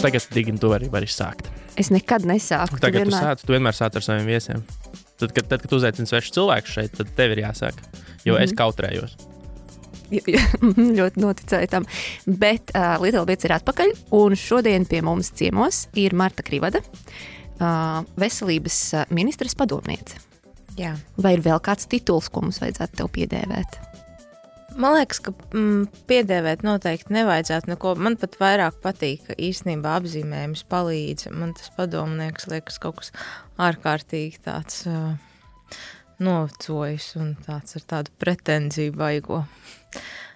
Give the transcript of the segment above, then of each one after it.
tagad, Digni, tu vari sākt. Es nekad nesāku. Tagad tu vienmēr sāc ar saviem viesiem. Tad, kad tu uzaicini svešu cilvēku šeit, tad tev ir jāsāk, jo es kautrējos. Ļoti noticēju tam. Bet Little Bits ir atpakaļ, un šodien pie mums ciemos ir Marta Krivada, veselības ministres padomniece. Jā. Vai ir vēl kāds tituls, ko mums vajadzētu tev piedēvēt? Man liekas, ka piedēvēt noteikti nevajadzētu neko. Man pat vairāk patīk, ka īstenībā apzīmējums palīdz. Man tas padomnieks liekas kaut kas ārkārtīgi tāds novecojis un tāds ar tādu pretenziju baigo.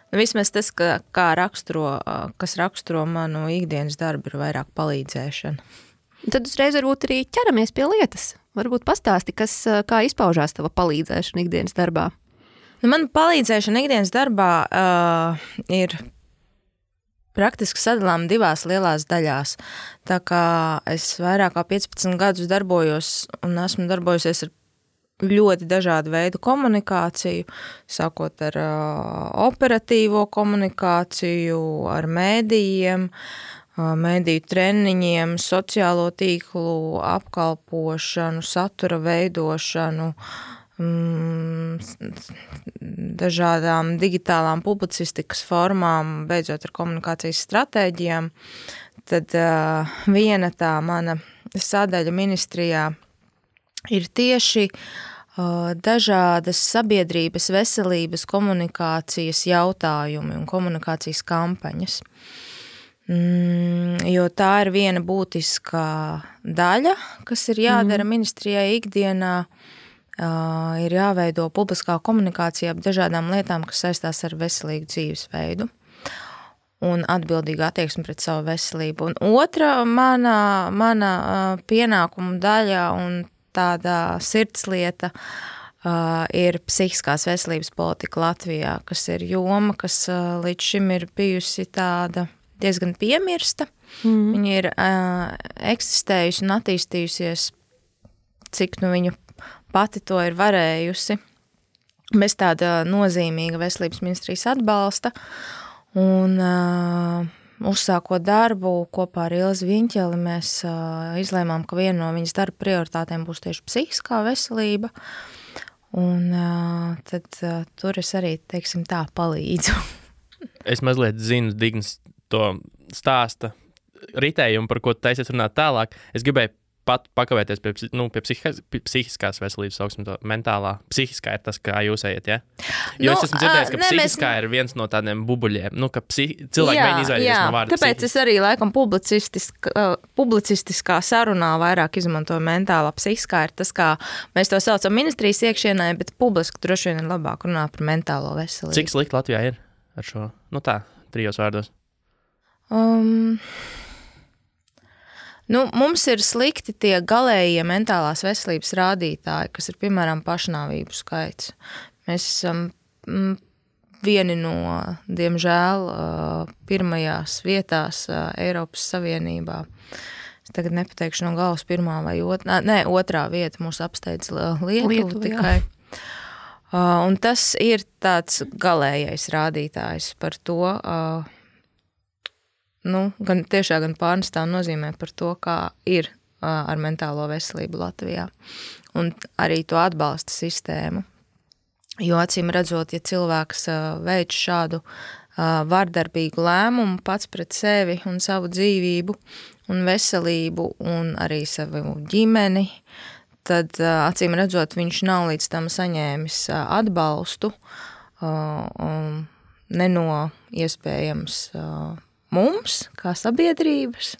Vismaz tas, kas raksturo manu ikdienas darbu, ir vairāk palīdzēšana. Tad uzreiz varbūt arī ķeramies pie lietas. Varbūt pastāsti, kā izpaužās tava palīdzēšana ikdienas darbā. Man palīdzēšana ikdienas darbā ir praktiski sadalām divās lielās daļās. Tā kā es vairāk kā 15 gadus darbojos un esmu darbojusies ar ļoti dažādu veidu komunikāciju, sākot ar operatīvo komunikāciju, ar mēdījiem, mēdīju treniņiem, sociālo tīklu apkalpošanu, satura veidošanu, dažādām digitālām publicistikas formām, beidzot ar komunikācijas stratēģijām, tad viena tā mana sadaļa ministrijā ir tieši dažādas sabiedrības veselības komunikācijas jautājumi un komunikācijas kampaņas. Jo tā ir viena būtiskā daļa, kas ir jādara ministrijai ikdienā, ir jāveido publiskā komunikācija ap dažādām lietām, kas saistās ar veselīgu dzīvesveidu un atbildīgu attieksmi pret savu veselību. Un otra mana pienākuma daļa un tāda sirdslieta ir psihiskās veselības politika Latvijā, kas ir joma, kas līdz šim ir bijusi tāda diezgan piemirsta. Viņa ir eksistējusi un attīstījusies, cik viņa pati to ir varējusi, bez tāda nozīmīga veselības ministrijas atbalsta. Un uzsākot darbu kopā ar Ilzi Viņķeli, mēs izlēmām, ka viena no viņas darba prioritātēm būs tieši psihiskā veselība. Un tad tur es arī, teiksim tā, palīdzu. Es mazliet zinu Dignas to stāsta ritējumu, par ko taisies runāt tālāk. Es gribēju pat pakavēties pie psihiskās veselības, sauksim to mentālā. Psihiskā ir tas, kā jūs ejat, ja? Jo es esmu dzirdējis, ka psihiskā ir viens no tādiem bubuļiem, ka cilvēki mēģina izvairīties no vārda tāpēc psihiski. Es arī laikam publicistiskā sarunā vairāk izmantoju mentālā. Psihiskā ir tas, kā mēs to saucam ministrijas iekšienē, bet publiski droši vien ir labāk runāt par mentālo veselību. Cik slikti Latvijā ir ar šo? Trijos vārdos. Mums ir slikti tie galējie mentālās veselības rādītāji, kas ir, piemēram, pašnāvību skaits. Mēs esam vieni no, diemžēl, pirmajās vietās Eiropas Savienībā. Es tagad nepateikšu no galvas pirmā vai otrā vieta mūs apsteidz Lietuva tikai. Un tas ir tāds galējais rādītājs par to, gan tiešā, gan pārnestā nozīmē par to, kā ir ar mentālo veselību Latvijā. Un arī to atbalsta sistēmu. Jo acīm redzot, ja cilvēks veic šādu vardarbīgu lēmumu pats pret sevi un savu dzīvību un veselību un arī savu ģimeni, tad acīm redzot, viņš nav līdz tam saņēmis atbalstu, ne no iespējams mums, kā sabiedrības,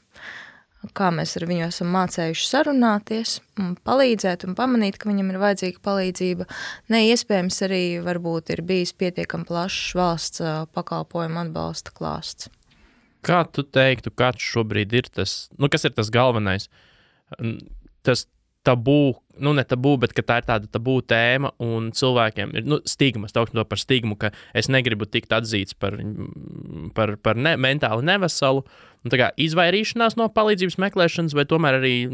kā mēs ar viņu esam mācējuši sarunāties, un palīdzēt un pamanīt, ka viņam ir vajadzīga palīdzība. Iespējams arī varbūt ir bijis pietiekami plašs valsts pakalpojumu atbalsta klāsts. Kā tu teiktu, kāds šobrīd ir tas, kas ir tas galvenais? Tas tabū, ne tabū, bet ka tā ir tāda tabū tēma un cilvēkiem ir, stigmas, tauksim to par stigmu, ka es negribu tikt atzīts par mentāli neveselu, tā kā izvairīšanās no palīdzības meklēšanas, vai tomēr arī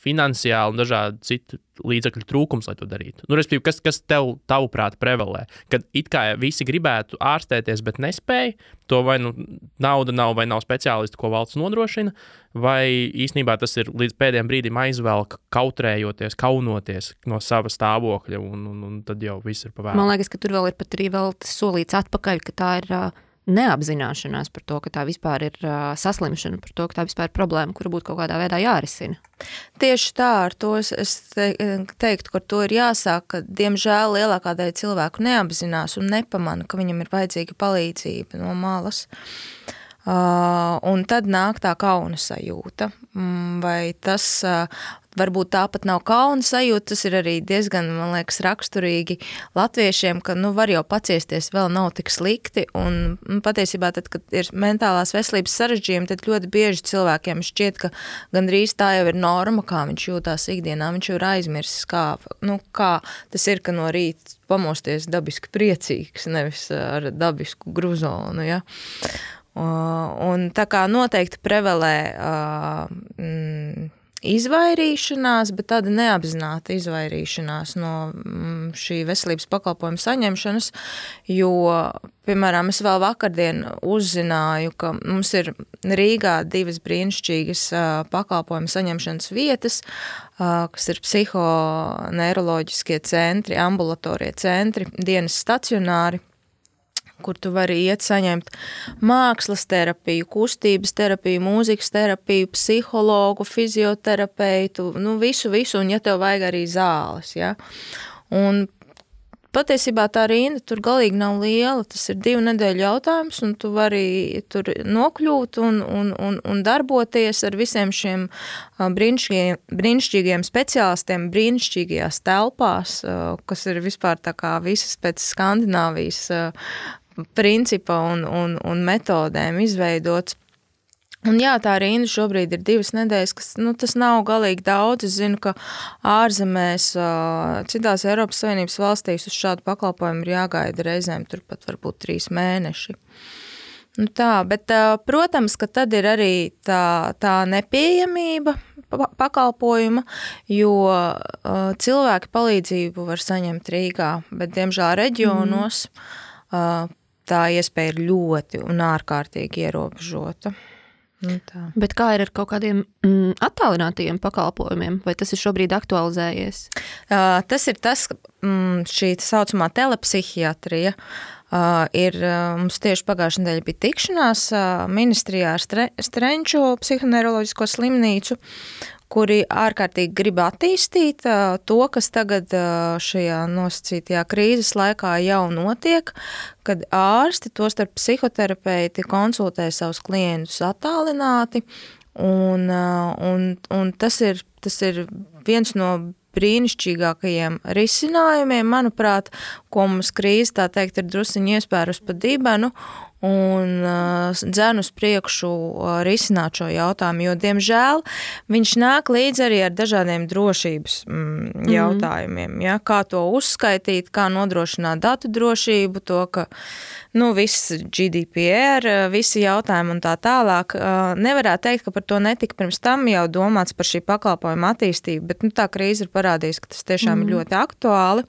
finansiāli un dažādi citi līdzekļu trūkums, lai to darītu? Respektīvi, kas tavuprāt prevalē? Kad it kā visi gribētu ārstēties, bet nespēj, to vai nauda nav vai nav speciālisti, ko valsts nodrošina, vai īstenībā tas ir līdz pēdējiem brīdim aizvelk, kautrējoties, kaunoties no sava stāvokļa, un tad jau viss ir pavēlēts. Man liekas, ka tur vēl ir pat arī solīts atpakaļ, ka tā ir neapzināšanās par to, ka tā vispār ir saslimšana, par to, ka tā vispār ir problēma, kura būtu kaut kādā veidā jārisina. Tieši tā, ar to es teiktu, ka to ir jāsāk, ka diemžēl lielākā daļa cilvēku neapzinās un nepamana, ka viņam ir vajadzīga palīdzība no malas. Un tad nāk tā kauna sajūta, vai tas varbūt tāpat nav kauna sajūta, tas ir arī diezgan, man liekas, raksturīgi latviešiem, ka var jau paciesties, vēl nav tik slikti, un patiesībā tad, kad ir mentālās veselības sarežģījumi, tad ļoti bieži cilvēkiem šķiet, ka gandrīz tā jau ir norma, kā viņš jūtās ikdienā, viņš jau ir aizmirsis, kā tas ir, ka no rīta pamosties dabiski priecīgs, nevis ar dabisku gruzonu, ja. Un tā kā noteikti prevalē izvairīšanās, bet tāda neapzināta izvairīšanās no šī veselības pakalpojuma saņemšanas, jo, piemēram, es vēl vakardien uzzināju, ka mums ir Rīgā 2 brīnišķīgas pakalpojuma saņemšanas vietas, kas ir psihoneiroloģiskie centri, ambulatorie centri, dienas stacionāri, kur tu vari iet saņemt mākslas terapiju, kustības terapiju, mūzikas terapiju, psihologu, fizioterapeitu, visu, un ja tev vajag arī zāles, ja. Un patiesībā tā rinda tur galīgi nav liela, tas ir 2 nedēļu jautājums, un tu vari tur nokļūt un darboties ar visiem šiem brīnišķīgiem speciālistiem, brīnišķīgajās telpās, kas ir vispār tā kā visas pēc Skandināvijas principa un metodēm izveidots. Un jā, tā rinda šobrīd ir 2 nedēļas, kas, tas nav galīgi daudz. Es zinu, ka ārzemēs, citās Eiropas Savienības valstīs uz šādu pakalpojumu ir jāgaida reizēm turpat varbūt 3 mēneši. Bet, protams, ka tad ir arī tā nepieejamība pakalpojuma, jo cilvēki palīdzību var saņemt Rīgā, bet, diemžēl, reģionos tā iespēja ir ļoti un ārkārtīgi ierobežota. Bet kā ir ar kaut kādiem attālinātajiem pakalpojumiem? Vai tas ir šobrīd aktualizējies? Tas ir tas, šī saucamā telepsihiatrija. Mums tieši pagājušajā nedēļā bija tikšanās ministrijā ar Strenču psihoneiroloģisko slimnīcu, kuri ārkārtīgi grib attīstīt to, kas tagad šajā nosacītajā krīzes laikā jau notiek, kad ārsti, tostarp psihoterapeiti, konsultē savus klientus attālināti, un tas ir viens no brīnišķīgākajiem risinājumiem, manuprāt, ko mums krīze, tā teikt, ir drusiņi iespērus pa dibenu, un dzen uz priekšu risināt šo jautājumu, jo, diemžēl, viņš nāk līdz arī ar dažādiem drošības jautājumiem, ja? Kā to uzskaitīt, kā nodrošināt datu drošību, to, ka viss GDPR, visi jautājumi un tā tālāk. Nevarētu teikt, ka par to netika pirms tam jau domāts par šī pakalpojuma attīstību, bet tā krīze ir parādījusi, ka tas tiešām ir ļoti aktuāli.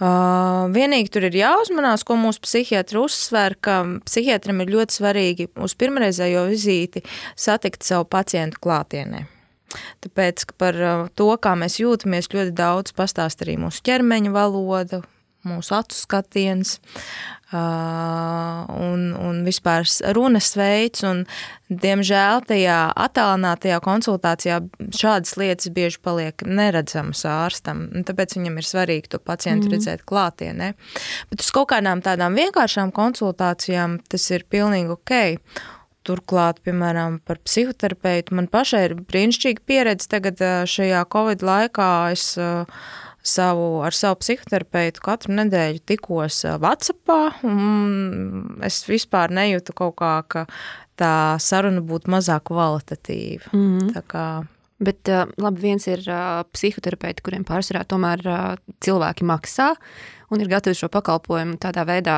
Vienīgi tur ir jāuzmanās, ko mūsu psihiatri uzsver, ka psihiatram ir ļoti svarīgi uz pirmreizējo vizīti satikt savu pacientu klātienē. Tāpēc, ka par to, kā mēs jūtamies, ļoti daudz pastāst arī mūsu ķermeņa valoda, mūsu acu skatiens un vispār runas veids, un diemžēl tajā attālinātajā konsultācijā šādas lietas bieži paliek neredzamas ārstam, un tāpēc viņam ir svarīgi to pacientu redzēt klātienē. Bet uz kaut kādām tādām vienkāršām konsultācijām tas ir pilnīgi ok. Turklāt, piemēram, par psihoterapeitu man pašai ir brīnišķīga pieredze tagad šajā Covid laikā. Es ar savu psihoterapeitu katru nedēļu tikos WhatsAppā, un es vispār nejūtu kaut kā, ka tā saruna būtu mazāk kvalitatīva. Tā kā... Bet labi, viens ir psihoterapeiti, kuriem pārsvarā tomēr cilvēki maksā un ir gatavi šo pakalpojumu tādā veidā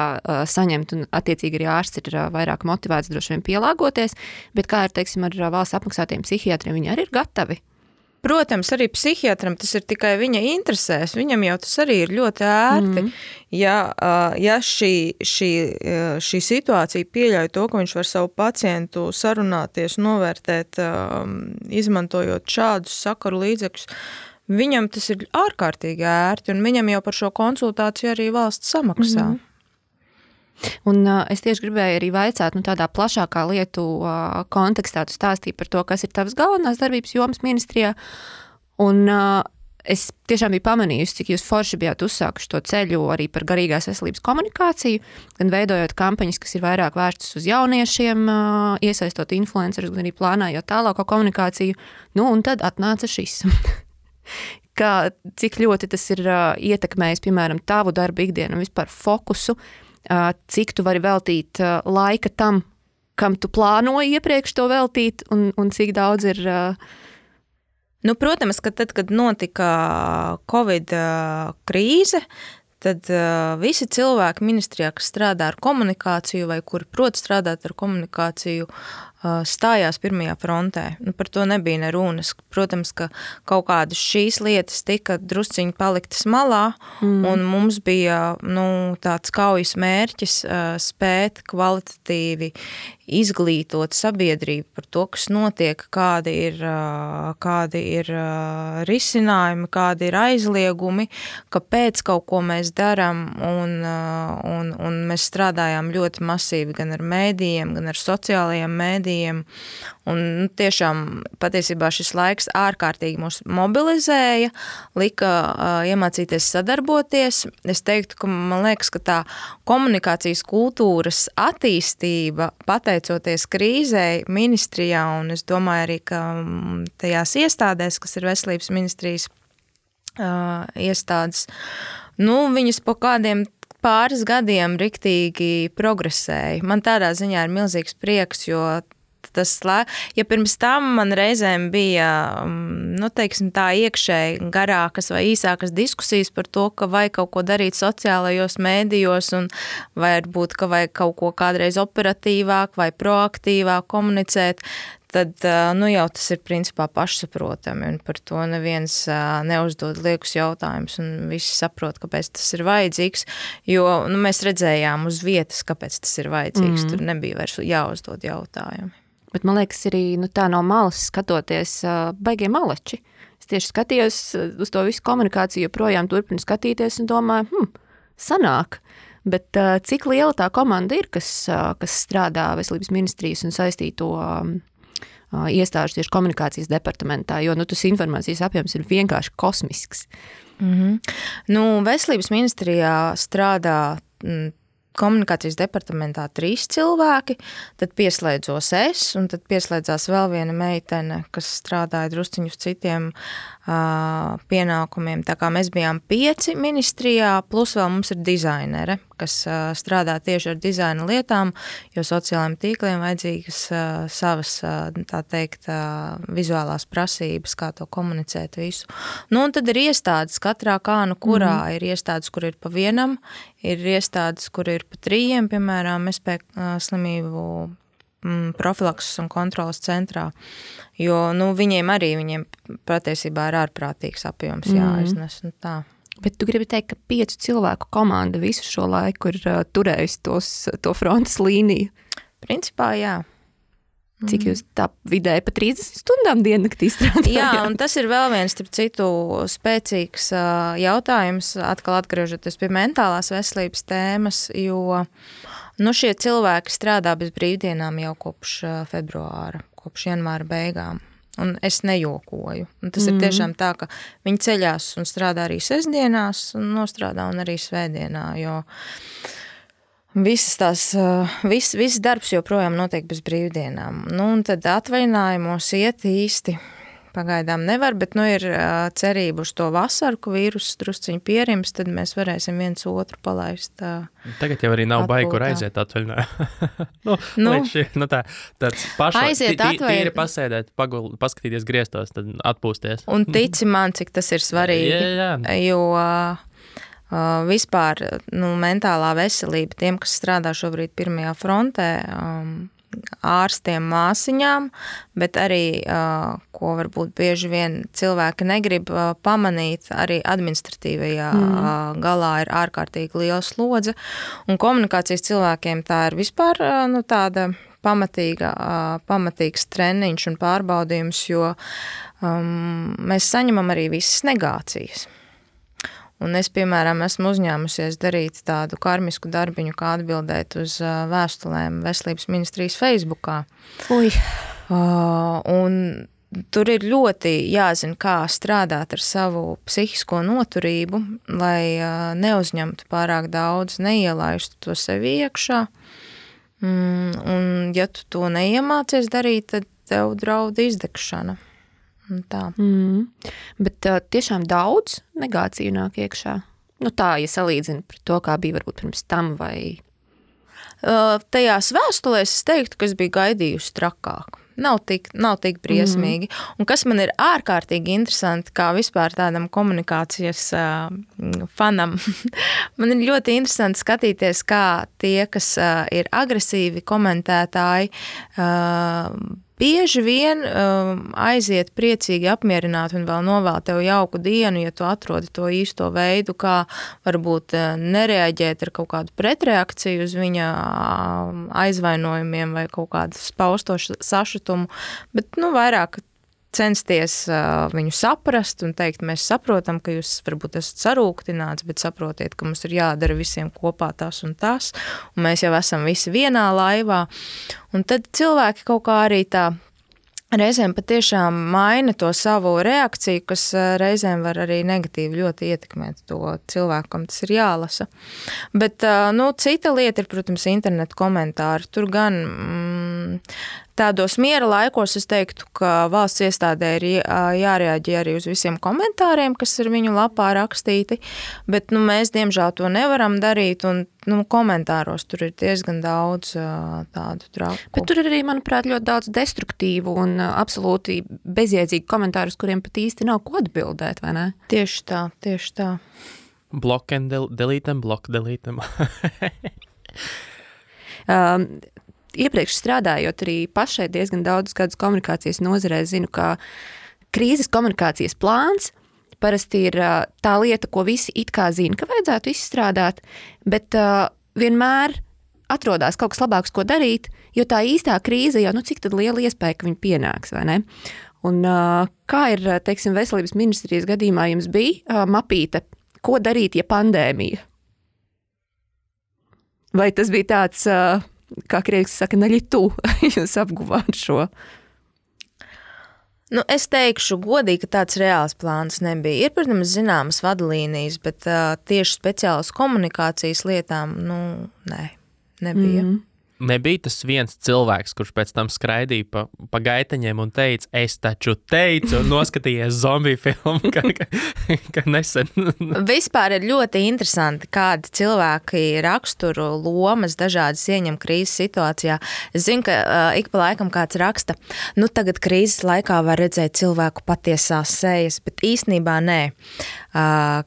saņemt, un attiecīgi arī ārsts ir vairāk motivēts droši vien pielāgoties, bet kā ir, teiksim, ar valsts apmaksātiem psihiatriem, viņi arī ir gatavi? Protams, arī psihiatram tas ir tikai viņa interesēs. Viņam jau tas arī ir ļoti ērti. Ja šī situācija pieļauj to, ka viņš var savu pacientu sarunāties, novērtēt, izmantojot šādus sakaru līdzekļus, viņam tas ir ārkārtīgi ērti, un viņam jau par šo konsultāciju arī valsts samaksā. Un es tieši gribēju arī vaicāt, tādā plašākā lietu kontekstā tu stāstīji par to, kas ir tavas galvenās darbības jomas ministrijā, un es tiešām biju pamanījusi, cik jūs forši bijāt uzsākuši to ceļu arī par garīgās veselības komunikāciju, gan veidojot kampaņas, kas ir vairāk vērstas uz jauniešiem, iesaistot influencerus, gan arī plānājot tālāko komunikāciju, un tad atnāca šis. Cik ļoti tas ir ietekmējis, piemēram, tavu darbu ikdienu un vispār fokusu, cik tu vari veltīt laika tam, kam tu plānoji iepriekš to veltīt, un cik daudz ir... Protams, ka tad, kad notika Covid krīze, tad visi cilvēki ministrijā, kas strādā ar komunikāciju vai kuri prot strādāt ar komunikāciju, stājās pirmajā frontē. Par to nebija ne runas. Protams, ka kaut kādas šīs lietas tika drusciņi paliktas malā, un mums bija tāds kaujas mērķis spēt kvalitatīvi izglītot sabiedrību par to, kas notiek, kādi ir risinājumi, kādi ir aizliegumi, kāpēc kaut ko mēs darām, un mēs strādājām ļoti masīvi gan ar mēdījiem, gan ar sociālajiem mēdījiem, un tiešām patiesībā šis laiks ārkārtīgi mūs mobilizēja, lika iemācīties sadarboties. Es teiktu, ka man liekas, ka tā komunikācijas kultūras attīstība, pateicoties krīzei ministrijā, un es domāju arī, ka tajās iestādēs, kas ir veselības ministrijas iestādes, viņas po kādiem pāris gadiem riktīgi progresēja. Man tādā ziņā ir milzīgs prieks, jo ja pirms tam man reizēm bija, teiksim tā, iekšēji garākas vai īsākas diskusijas par to, ka vajag kaut ko darīt sociālajos mēdījos, un varbūt, ka vajag kaut ko kādreiz operatīvāk vai proaktīvāk komunicēt, tad jau tas ir principā pašsaprotami, un par to neviens neuzdod liekus jautājumus, un visi saprot, kāpēc tas ir vajadzīgs, jo mēs redzējām uz vietas, kāpēc tas ir vajadzīgs, tur nebija vairs jāuzdod jautājumi. Bet man liekas arī, tā no malas skatoties, baigie maleči. Es tieši skatījos uz to visu komunikāciju, joprojām turpinu skatīties un domāju, sanāk. Bet cik liela tā komanda ir, kas strādā veselības ministrijas un saistīto iestāžu tieši komunikācijas departamentā, jo tas informācijas apjoms ir vienkārši kosmisks. Veselības ministrijā strādā komunikācijas departamentā 3 cilvēki, tad pieslēdzos es, un tad pieslēdzās vēl viena meitene, kas strādāja drusciņu uz citiem pienākumiem. Tā kā mēs bijām 5 ministrijā, plus vēl mums ir dizainere, kas strādā tieši ar dizaina lietām, jo sociālajiem tīkliem vajadzīgas savas, tā teikt, vizuālās prasības, kā to komunicēt visu. Un tad ir iestādes katrā kurā ir iestādes, kur ir pa vienam, ir iestādes, kur ir pa 3, piemēram, SP slimību profilakses un kontrolas centrā, jo viņiem patiesībā ir ārprātīgs apjoms jāiznes. Tā. Bet tu gribi teikt, ka 5 cilvēku komanda visu šo laiku ir turējusi to frontes līniju? Principā, jā. Cik jūs tā vidēji pa 30 stundām diennaktī strādājāt? Jā, un tas ir vēl viens, starp citu, spēcīgs jautājums, atkal atgriežoties pie mentālās veselības tēmas, jo šie cilvēki strādā bez brīvdienām jau kopš februāra, kopš janvāra beigām. Un es nejokoju. Un tas ir tiešām tā, ka viņi ceļās un strādā arī sestdienās, un nostrādā un arī svētdienā, jo viss darbs joprojām notiek bez brīvdienām. Un tad atvaļinājumos iet īsti pagaidām nevar, bet ir cerība uz to vasaru, ka vīruss drusciņi pierims, tad mēs varēsim viens otru palaist. Tagad jau arī nav baigi, kur aiziet atvaļinājumā. Tāds pašai tīri pasēdēt, paskatīties griestos, tad atpūsties. Un tici man, cik tas ir svarīgi, jo vispār mentālā veselība tiem, kas strādā šobrīd pirmajā frontē, ārstiem, māsiņām, bet arī, ko varbūt bieži vien cilvēki negrib pamanīt, arī administratīvajā galā ir ārkārtīgi liela slodze. Un komunikācijas cilvēkiem tā ir vispār tāda pamatīgs treniņš un pārbaudījums, jo mēs saņemam arī visas negācijas. Un es, piemēram, esmu uzņēmusies darīt tādu karmisku darbiņu, kā atbildēt uz vēstulēm Veselības ministrijas Facebookā. Un tur ir ļoti jāzina, kā strādāt ar savu psihisko noturību, lai neuzņemtu pārāk daudz, neielaistu to sevi iekšā. Un ja tu to neiemācies darīt, tad tev draud izdegšana. Tā. Bet tiešām daudz negāciju nāk iekšā. Tā, ja salīdzina pret to, kā bija varbūt pirms tam vai... Tajās vēstulēs es teiktu, ka es biju gaidījusi trakāk. Nav tik briesmīgi. Un kas man ir ārkārtīgi interesanti, kā vispār tādam komunikācijas fanam, man ir ļoti interesanti skatīties, kā tie, kas ir agresīvi komentētāji, bieži vien aiziet priecīgi apmierināti un vēl novēl tev jauku dienu, ja tu atrodi to īsto veidu, kā varbūt nereaģēt ar kaut kādu pretreakciju uz viņa aizvainojumiem vai kaut kādu spausto sašutumu, bet vairāk censties viņu saprast un teikt, mēs saprotam, ka jūs varbūt esat sarūktināts, bet saprotiet, ka mums ir jādara visiem kopā tas un tas, un mēs jau esam visi vienā laivā. Un tad cilvēki kaut kā arī tā reizēm patiešām maina to savu reakciju, kas reizēm var arī negatīvi ļoti ietekmēt to cilvēku, kam tas ir jālasa. Bet, cita lieta ir, protams, internetu komentāri. Tur gan tādos miera laikos es teiktu, ka valsts iestādē ir jārēģē arī uz visiem komentāriem, kas ir viņu lapā rakstīti, bet mēs diemžēl to nevaram darīt, un komentāros tur ir diezgan daudz tādu trauku. Bet tur ir arī, manuprāt, ļoti daudz destruktīvu un absolūti bezjēdzīgu komentāru, uz kuriem pat īsti nav ko atbildēt, vai ne? Tieši tā. Block and delete, block, delete. Iepriekš strādājot arī pašai diezgan daudz gadus komunikācijas nozarē, zinu, ka krīzes komunikācijas plāns parasti ir tā lieta, ko visi it kā zina, ka vajadzētu izstrādāt, bet vienmēr atrodās kaut kas labāks, ko darīt, jo tā īstā krīze jau, cik tad liela iespēja, ka viņi pienāks, vai ne? Un kā ir, teiksim, Veselības ministrijas gadījumā jums bija mapīte, ko darīt, ja pandēmija? Vai tas bija tāds... kā krieviski saka, naļitu, jūs apguvāt šo? Es teikšu godīgi, ka tāds reāls plāns nebija. Ir, protams, zināmas vadlīnijas, bet tieši speciālas komunikācijas lietām, nebija. Nebija tas viens cilvēks, kurš pēc tam skraidīja pa gaitaņiem un teica, es taču teicu, un noskatījies zombiju filmu, ka nesen. Vispār ir ļoti interesanti, kādi cilvēki raksturu lomas dažādas ieņem krīzes situācijā. Es zinu, ka ik pa laikam kāds raksta, tagad krīzes laikā var redzēt cilvēku patiesās sejas, bet īstenībā nē.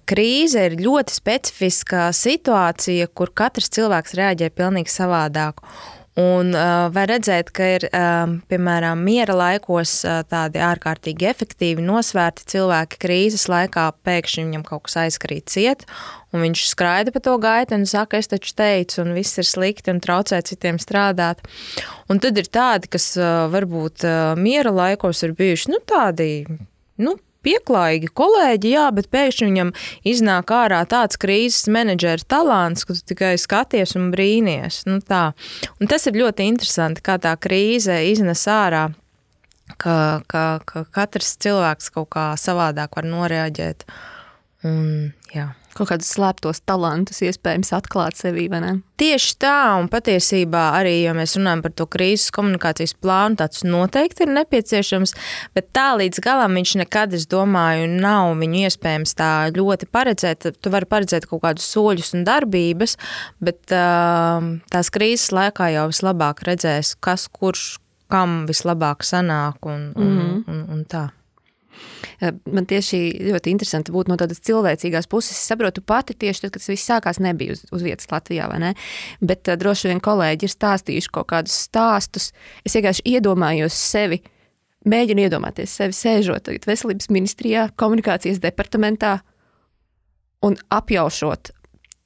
Krīze ir ļoti specifiska situācija, kur katrs cilvēks reaģē pilnīgi savādāk. Un var redzēt, ka ir, piemēram, miera laikos tādi ārkārtīgi efektīvi nosvērti cilvēki krīzes laikā, pēkšņi viņam kaut kas aizkrīt ciet, un viņš skraida pa to gaitu un saka, es taču teicu, un viss ir slikti un traucē citiem strādāt. Un tad ir tādi, kas varbūt miera laikos ir bijuši, tādi, pieklājīgi kolēģi, jā, bet pēkšņi viņam iznāk ārā tāds krīzes menedžera talants, ka tu tikai skaties un brīnies. Tā. Un tas ir ļoti interesanti, kā tā krīze iznes ārā, ka katrs cilvēks kaut kā savādāk var noreaģēt. Un, jā. Kaut kādus slēptos talantus iespējams atklāt sevī, vai ne? Tieši tā, un patiesībā arī, ja mēs runājam par to krīzes komunikācijas plānu, tāds noteikti ir nepieciešams, bet tā līdz galam viņš nekad, es domāju, nav viņu iespējams tā ļoti paredzēt. Tu vari paredzēt kaut kādus soļus un darbības, bet tās krīzes laikā jau vislabāk redzēs, kas, kurš, kam vislabāk sanāk un tā. Man tieši ļoti interesanti būt no tādas cilvēcīgās puses. Es saprotu pati tieši tad, kad tas viss sākās, nebija uz vietas Latvijā, vai ne? Bet droši vien kolēģi ir stāstījuši kaut kādus stāstus. Es vienkārši iedomājos sevi, mēģinu iedomāties sevi sēžot veselības ministrijā, komunikācijas departamentā un apjaušot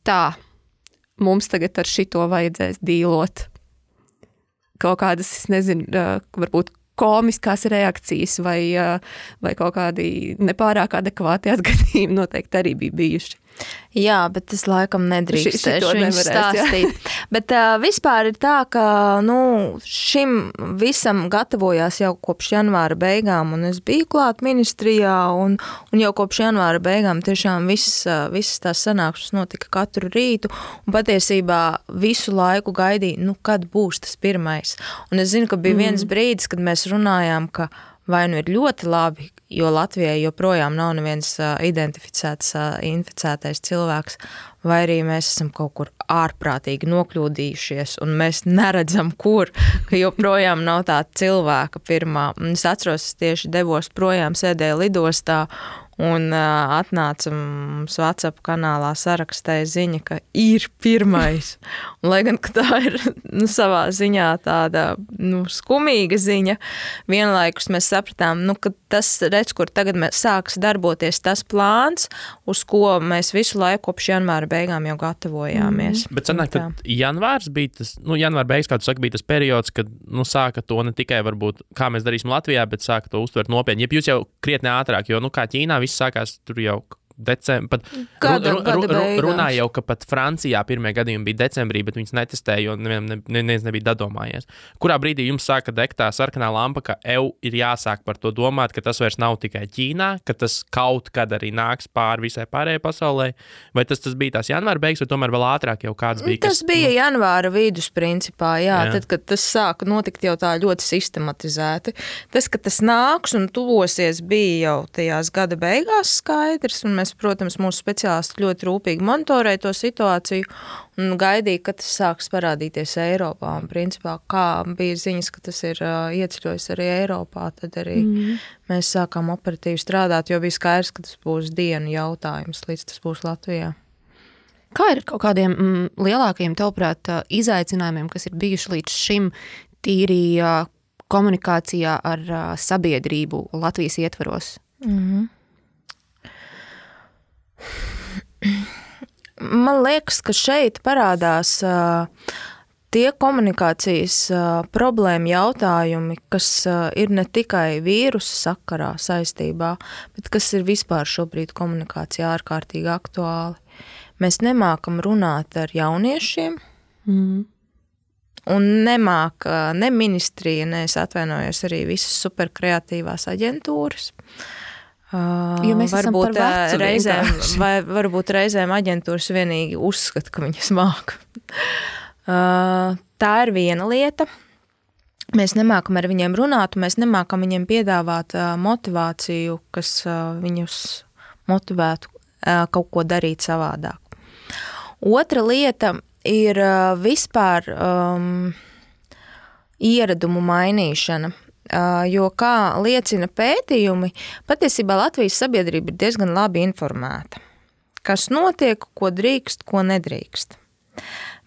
tā, mums tagad ar šito vajadzēs dīlot. Kaut kādas, es nezinu, varbūt komiskās reakcijas vai kaut kādi nepārāk adekvāti atgadījumi noteikti arī bija bijuši. Jā, bet es laikam nedrīkstēšu viņu stāstīt. Jā. Bet vispār ir tā, ka šim visam gatavojās jau kopš janvāra beigām, un es biju klāt ministrijā, un jau kopš janvāra beigām tiešām visas tās sanākšanas notika katru rītu, un patiesībā visu laiku gaidīju, kad būs tas pirmais. Un es zinu, ka bija viens brīdis, kad mēs runājām, ka vai nu ir ļoti labi, jo Latvijai joprojām nav neviens identificēts inficētais cilvēks, vai arī mēs esam kaut kur ārprātīgi nokļūdījušies, un mēs neredzam, kur, ka joprojām nav tā cilvēka pirmā. Es atceros, es tieši devos projām, sēdēju lidostā, un atnāca mums WhatsApp kanālā sarakstīja ziņa, ka ir pirmais. Un, lai gan tā ir savā ziņā tāda skumīga ziņa, vienlaikus mēs sapratām, ka tas, redz, kur tagad sāks darboties tas plāns, uz ko mēs visu laiku kopš janvāra beigām jau gatavojāmies. Bet sanāk, tad janvārs bija tas, janvāra beigas, kā tu saki, bija tas periods, kad sāka to ne tikai varbūt, kā mēs darīsim Latvijā, bet sāka to uztvert nopietni. Ja jūs jau krietni ātrāk, jo, kā Ķīnā viss sākās tur jau decembrī. Runāja jau, ka pat Francijā pirmie gadījumi bija decembrī, bet viņas netestēja, jo neviens nebija dadomājies. Kurā brīdī jums sāka degt tā sarkanā lampa, ka ir jāsāk par to domāt, ka tas vairs nav tikai Ķīnā, ka tas kaut kad arī nāks pāri visai pārējai pasaulē? Vai tas bija tās janvāra beigas, vai tomēr vēl ātrāk jau kāds bija? Tas bija janvāra vidus principā, jā. Tad, kad tas sāka notikt jau tā ļoti sistematizēti. Tas, ka tas nāks un tuvosies, bija jau tajās gada beigās skaidrs, un mēs, protams, mūsu speciālisti ļoti rūpīgi monitorēja to situāciju un gaidīja, ka tas sāks parādīties Eiropā. Un, principā, kā bija ziņas, ka tas ir ieceļojis arī Eiropā, tad arī mēs sākām operatīvi strādāt, jo bija skaidrs, ka tas būs dienu jautājums, līdz tas būs Latvijā. Kā ir kaut kādiem lielākajiem, tavuprāt, izaicinājumiem, kas ir bijuši līdz šim tīri komunikācijā ar sabiedrību Latvijas ietvaros? Man liekas, ka šeit parādās tie komunikācijas problēma jautājumi, kas ir ne tikai vīrusa sakarā saistībā, bet kas ir vispār šobrīd komunikācijā ārkārtīgi aktuāli. Mēs nemākam runāt ar jauniešiem, un nemāk ne ministrija, ne es atvainojos arī visas superkreatīvās aģentūras. Jo mēs esam par vecu varbūt reizēm aģentūras vienīgi uzskata, ka viņas māk. Tā ir viena lieta. Mēs nemākam ar viņiem runāt, un mēs nemākam viņiem piedāvāt motivāciju, kas viņus motivētu kaut ko darīt savādāk. Otra lieta ir vispār ieradumu mainīšana. Jo, kā liecina pētījumi, patiesībā Latvijas sabiedrība ir diezgan labi informēta. Kas notiek, ko drīkst, ko nedrīkst.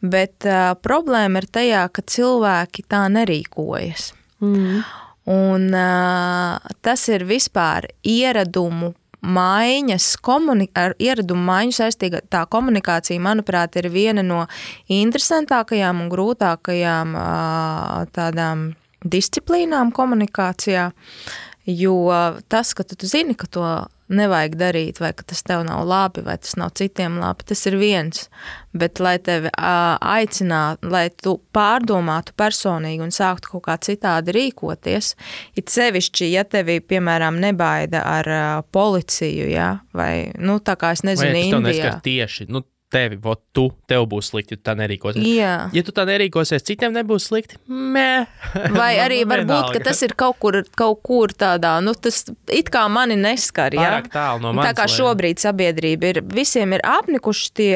Bet problēma ir tajā, ka cilvēki tā nerīkojas. Un tas ir vispār ieradumu maiņas, ar ieradumu maiņu saistīga tā komunikācija, manuprāt, ir viena no interesantākajām un grūtākajām tādām disciplīnām komunikācijā, jo tas, ka tu zini, ka to nevajag darīt, vai ka tas tev nav labi, vai tas nav citiem labi, tas ir viens. Bet, lai tevi aicinātu, lai tu pārdomātu personīgi un sāktu kaut kā citādi rīkoties, it sevišķi, ja tevi, piemēram, nebaida ar policiju, ja, vai, tā kā es nezinu, Indijā. Vai tas tev neskar tieši, tev būs slikti, ja tu tā nerīkosies. Jā. Ja tu tā nerīkosies, citiem nebūs slikti, Vai arī varbūt, ka tas ir kaut kur tādā, tas it kā mani neskar, ja? Pārāk tālu no manis. Tā kā šobrīd sabiedrība visiem ir apnikuši tie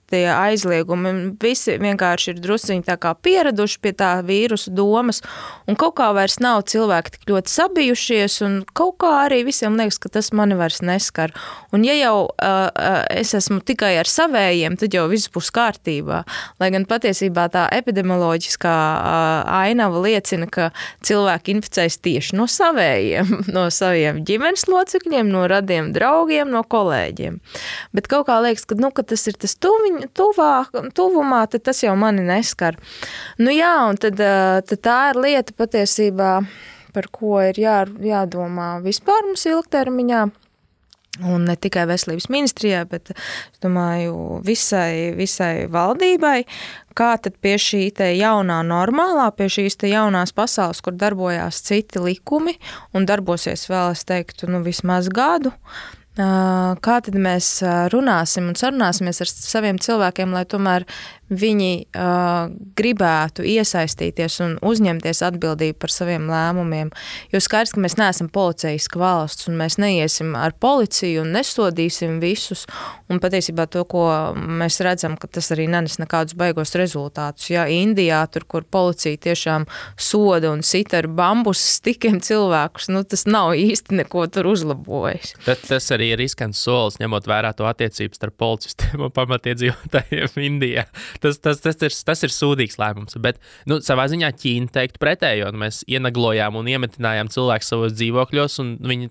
aizliegumi, visi vienkārši ir drusciņi tā kā pieraduši pie tā vīrusu domas, un kaut kā vairs nav cilvēki tik ļoti sabijušies, un kaut kā arī visiem liekas, ka tas mani vairs neskar. Un ja jau es esmu tikai ar savējiem, tad jau viss būs kārtībā. Lai gan patiesībā tā epidemioloģiskā ainava liecina, ka cilvēki inficējas tieši no savējiem, no saviem ģimenes locekļiem, no radiem draugiem, no kolēģiem. Bet kaut kā liekas, ka tas ir tas tuvumā, tad tas jau mani neskar. Jā, un tad tā ir lieta patiesībā, par ko ir jādomā vispār mums ilgtermiņā. Un ne tikai veselības ministrijā, bet, es domāju, visai valdībai, kā tad pie šī te jaunā normālā, pie šīs te jaunās pasaules, kur darbojās citi likumi un darbosies vēl, es teiktu, vismaz gadu, kā tad mēs runāsim un sarunāsimies ar saviem cilvēkiem, lai tomēr viņi gribētu iesaistīties un uzņemties atbildību par saviem lēmumiem. Jo skaidrs, ka mēs neesam policeiska valsts un mēs neiesim ar policiju un nesodīsim visus. Un patiesībā to, ko mēs redzam, ka tas arī nenes nekādus baigos rezultātus. Ja Indijā, tur, kur policija tiešām soda un sita ar bambus stikiem cilvēkus, tas nav īsti neko tur uzlabojis. Tas arī ir riskants solis, ņemot vērā to attiecības starp policistiem un pamatiedzīvotājiem Indijā. Tas ir sūdīgs lēmums, bet savā ziņā Ķīna teiktu pretējo. Mēs ienaglojām un iemetinājām cilvēkus savos dzīvokļos, un viņi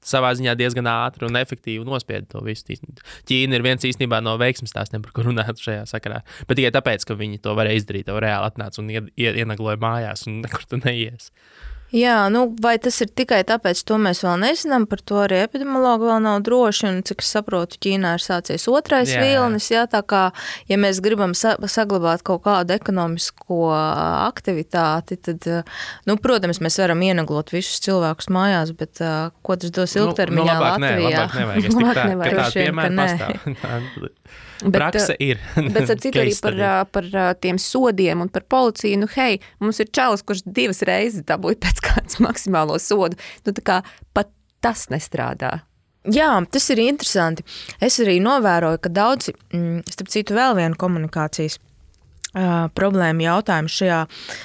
savā ziņā diezgan ātri un efektīvi nospieda to visu. Ķīna ir viens īstenībā no veiksmes stāstiem, par ko runāt šajā sakarā. Bet tikai tāpēc, ka viņi to varēja izdarīt, to reāli atnāca un ienagloja mājās un nekur tu neies. Jā, vai tas ir tikai tāpēc, to mēs vēl nezinām, par to arī epidemiologi vēl nav droši, un cik es saprotu, Ķīnā ir sācies otrais vilnis, tā kā, ja mēs gribam saglabāt kaut kādu ekonomisko aktivitāti, tad, protams, mēs varam ienaglot visus cilvēkus mājās, bet ko tas dos ilgtermiņā Latvijā? Labāk nevajag, es tik tā, ka tāda piemēra pastāv. Prakse ir. Bet ar citu arī par tiem sodiem un par policiju, mums ir čalis, kurš 2 reizes dabūja pēc kāds maksimālo sodu. Tā kā pat tas nestrādā. Jā, tas ir interesanti. Es arī novēroju, ka daudzi, starp citu vēl vienu komunikācijas problēma jautājums šajā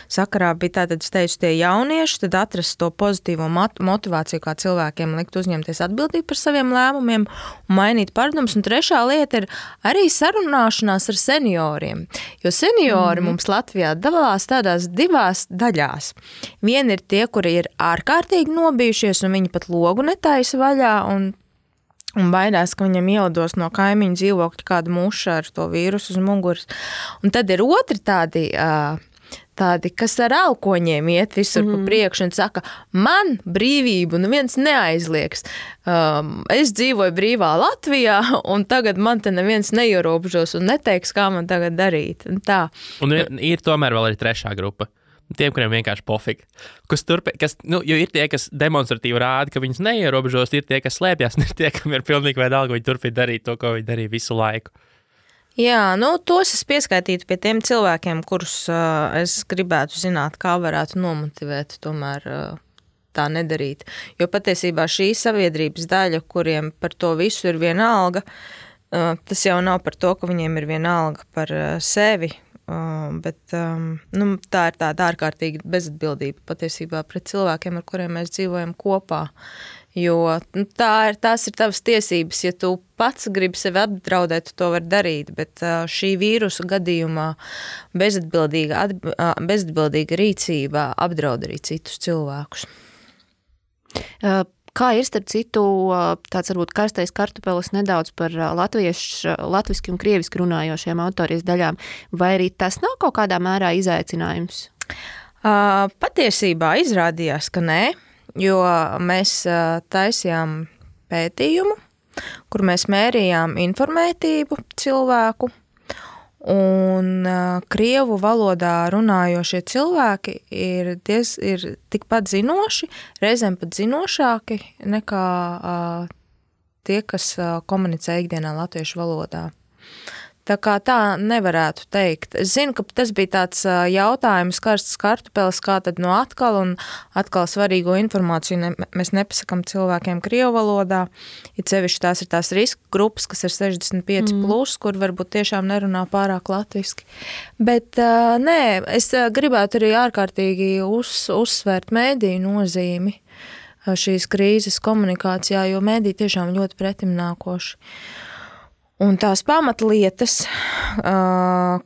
sakarā bija tātad, es teicu, tie jaunieši, tad atrast to pozitīvo motivāciju, kā cilvēkiem likt uzņemties atbildību par saviem lēmumiem un mainīt paradumus. Un trešā lieta ir arī sarunāšanās ar senioriem, jo seniori mums Latvijā dalās tādās 2 daļās. Vieni ir tie, kuri ir ārkārtīgi nobijušies un viņi pat logu netaisa vaļā un baidās, ka viņam ielidos no kaimiņu dzīvokļa kāda muša ar to vīrusu uz muguras. Un tad ir otri tādi, kas ar elkoņiem iet visur pa priekšu un saka, man brīvību neviens neaizliegs. Es dzīvoju brīvā Latvijā, un tagad man te neviens neierobežos un neteiks, kā man tagad darīt. Un tā. Un ir tomēr vēl arī trešā grupa. Tiem, kuriem vienkārši pofīgi. Jo ir tie, kas demonstratīvi rāda, ka viņus neierobežos, ir tie, kas slēpjas, un ir tie, kam ir pilnīgi vienalga, viņi turpina darīt to, ko viņi darīja visu laiku. Jā, tos es pieskaitītu pie tiem cilvēkiem, kurus es gribētu zināt, kā varētu nomotivēt tomēr tā nedarīt. Jo patiesībā šī sabiedrības daļa, kuriem par to visu ir vienalga, tas jau nav par to, ka viņiem ir vienalga par sevi, bet tā ir tāda ārkārtīga bezatbildība patiesībā pret cilvēkiem, ar kuriem mēs dzīvojam kopā. Jo tās ir tavas tiesības, ja tu pats gribi sevi apdraudēt, tu to var darīt, bet šī vīrusa gadījumā bezatbildīga rīcība apdraud arī citus cilvēkus. Kā ir starp citu tāds varbūt karstais kartupelis nedaudz par latviski un krieviski runājošiem autorijas daļām, vai arī tas nav kaut kādā mērā izaicinājums? Patiesībā izrādījās, ka nē, jo mēs taisījām pētījumu, kur mēs mērījām informētību cilvēku, un krievu valodā runājošie cilvēki ir tikpat zinoši, reizēm pat zinošāki nekā tie, kas komunicē ikdienā latviešu valodā. Tā kā tā nevarētu teikt. Es zinu, ka tas bija tāds jautājums, karsts kartupeles, kā tad no atkal svarīgo informāciju mēs nepasakam cilvēkiem krievu valodā. Ja sevišķi tās ir tās riska grupas, kas ir 65+, kur varbūt tiešām nerunā pārāk latviski. Bet nē, es gribētu arī ārkārtīgi uzsvērt mēdīju nozīmi šīs krīzes komunikācijā, jo mēdī tiešām ļoti pretimnākoši. Un tās pamatlietas,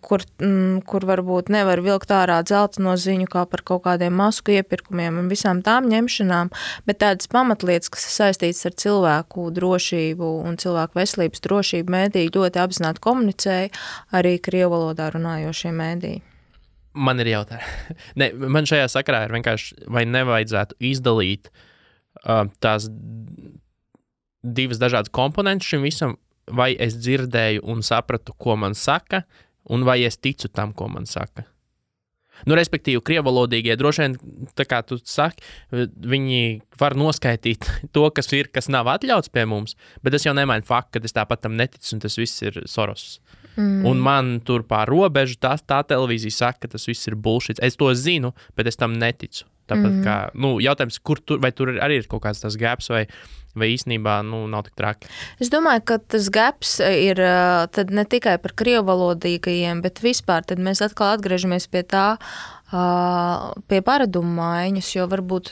kur varbūt nevar vilkt ārā dzelteno ziņu kā par kaut kādiem masku iepirkumiem un visām tām ņemšanām, bet tādas pamatlietas, kas ir saistītas ar cilvēku drošību un cilvēku veselības drošību, mēdī ļoti apzināti komunicēja arī krievu valodā runājošie mēdī. Man ir jautājumi. Man šajā sakarā ir vienkārši, vai nevajadzētu izdalīt tās divas dažādas komponentes šim visam, vai es dzirdēju un sapratu, ko man saka, un vai es ticu tam, ko man saka. Respektīvi, krievalodīgie droši vien, tā kā tu saki, viņi var noskaitīt to, kas nav atļauts pie mums, bet tas jau nemaina faktu, ka es tāpat tam neticu, un tas viss ir Soros. Un man tur pār robežu tā televīzija saka, ka tas viss ir bullshit. Es to zinu, bet es tam neticu. Tāpat kā, jautājums, vai tur arī ir kaut kāds tas gaps, vai īstenībā nav tik traki? Es domāju, ka tas gaps ir tad ne tikai par krievalodīgajiem, bet vispār tad mēs atkal atgriežamies pie tā, pie paradumu maiņas, jo varbūt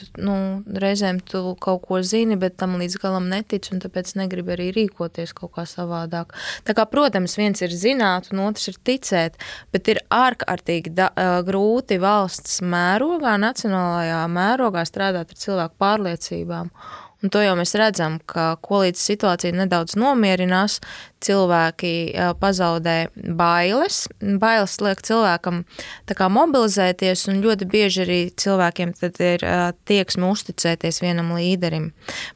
reizēm tu kaut ko zini, bet tam līdz galam netici, un tāpēc negribi arī rīkoties kaut kā savādāk. Tā kā, protams, viens ir zināt, un otrs ir ticēt, bet ir ārkārtīgi grūti valsts mērogā, nacionālajā mērogā strādāt ar cilvēku pārliecībām. Un to jau mēs redzam, ka ko līdz situācija nedaudz nomierinās, cilvēki pazaudē bailes. Bailes liek cilvēkam tā kā mobilizēties, un ļoti bieži arī cilvēkiem tad ir tieksme uzticēties vienam līderim.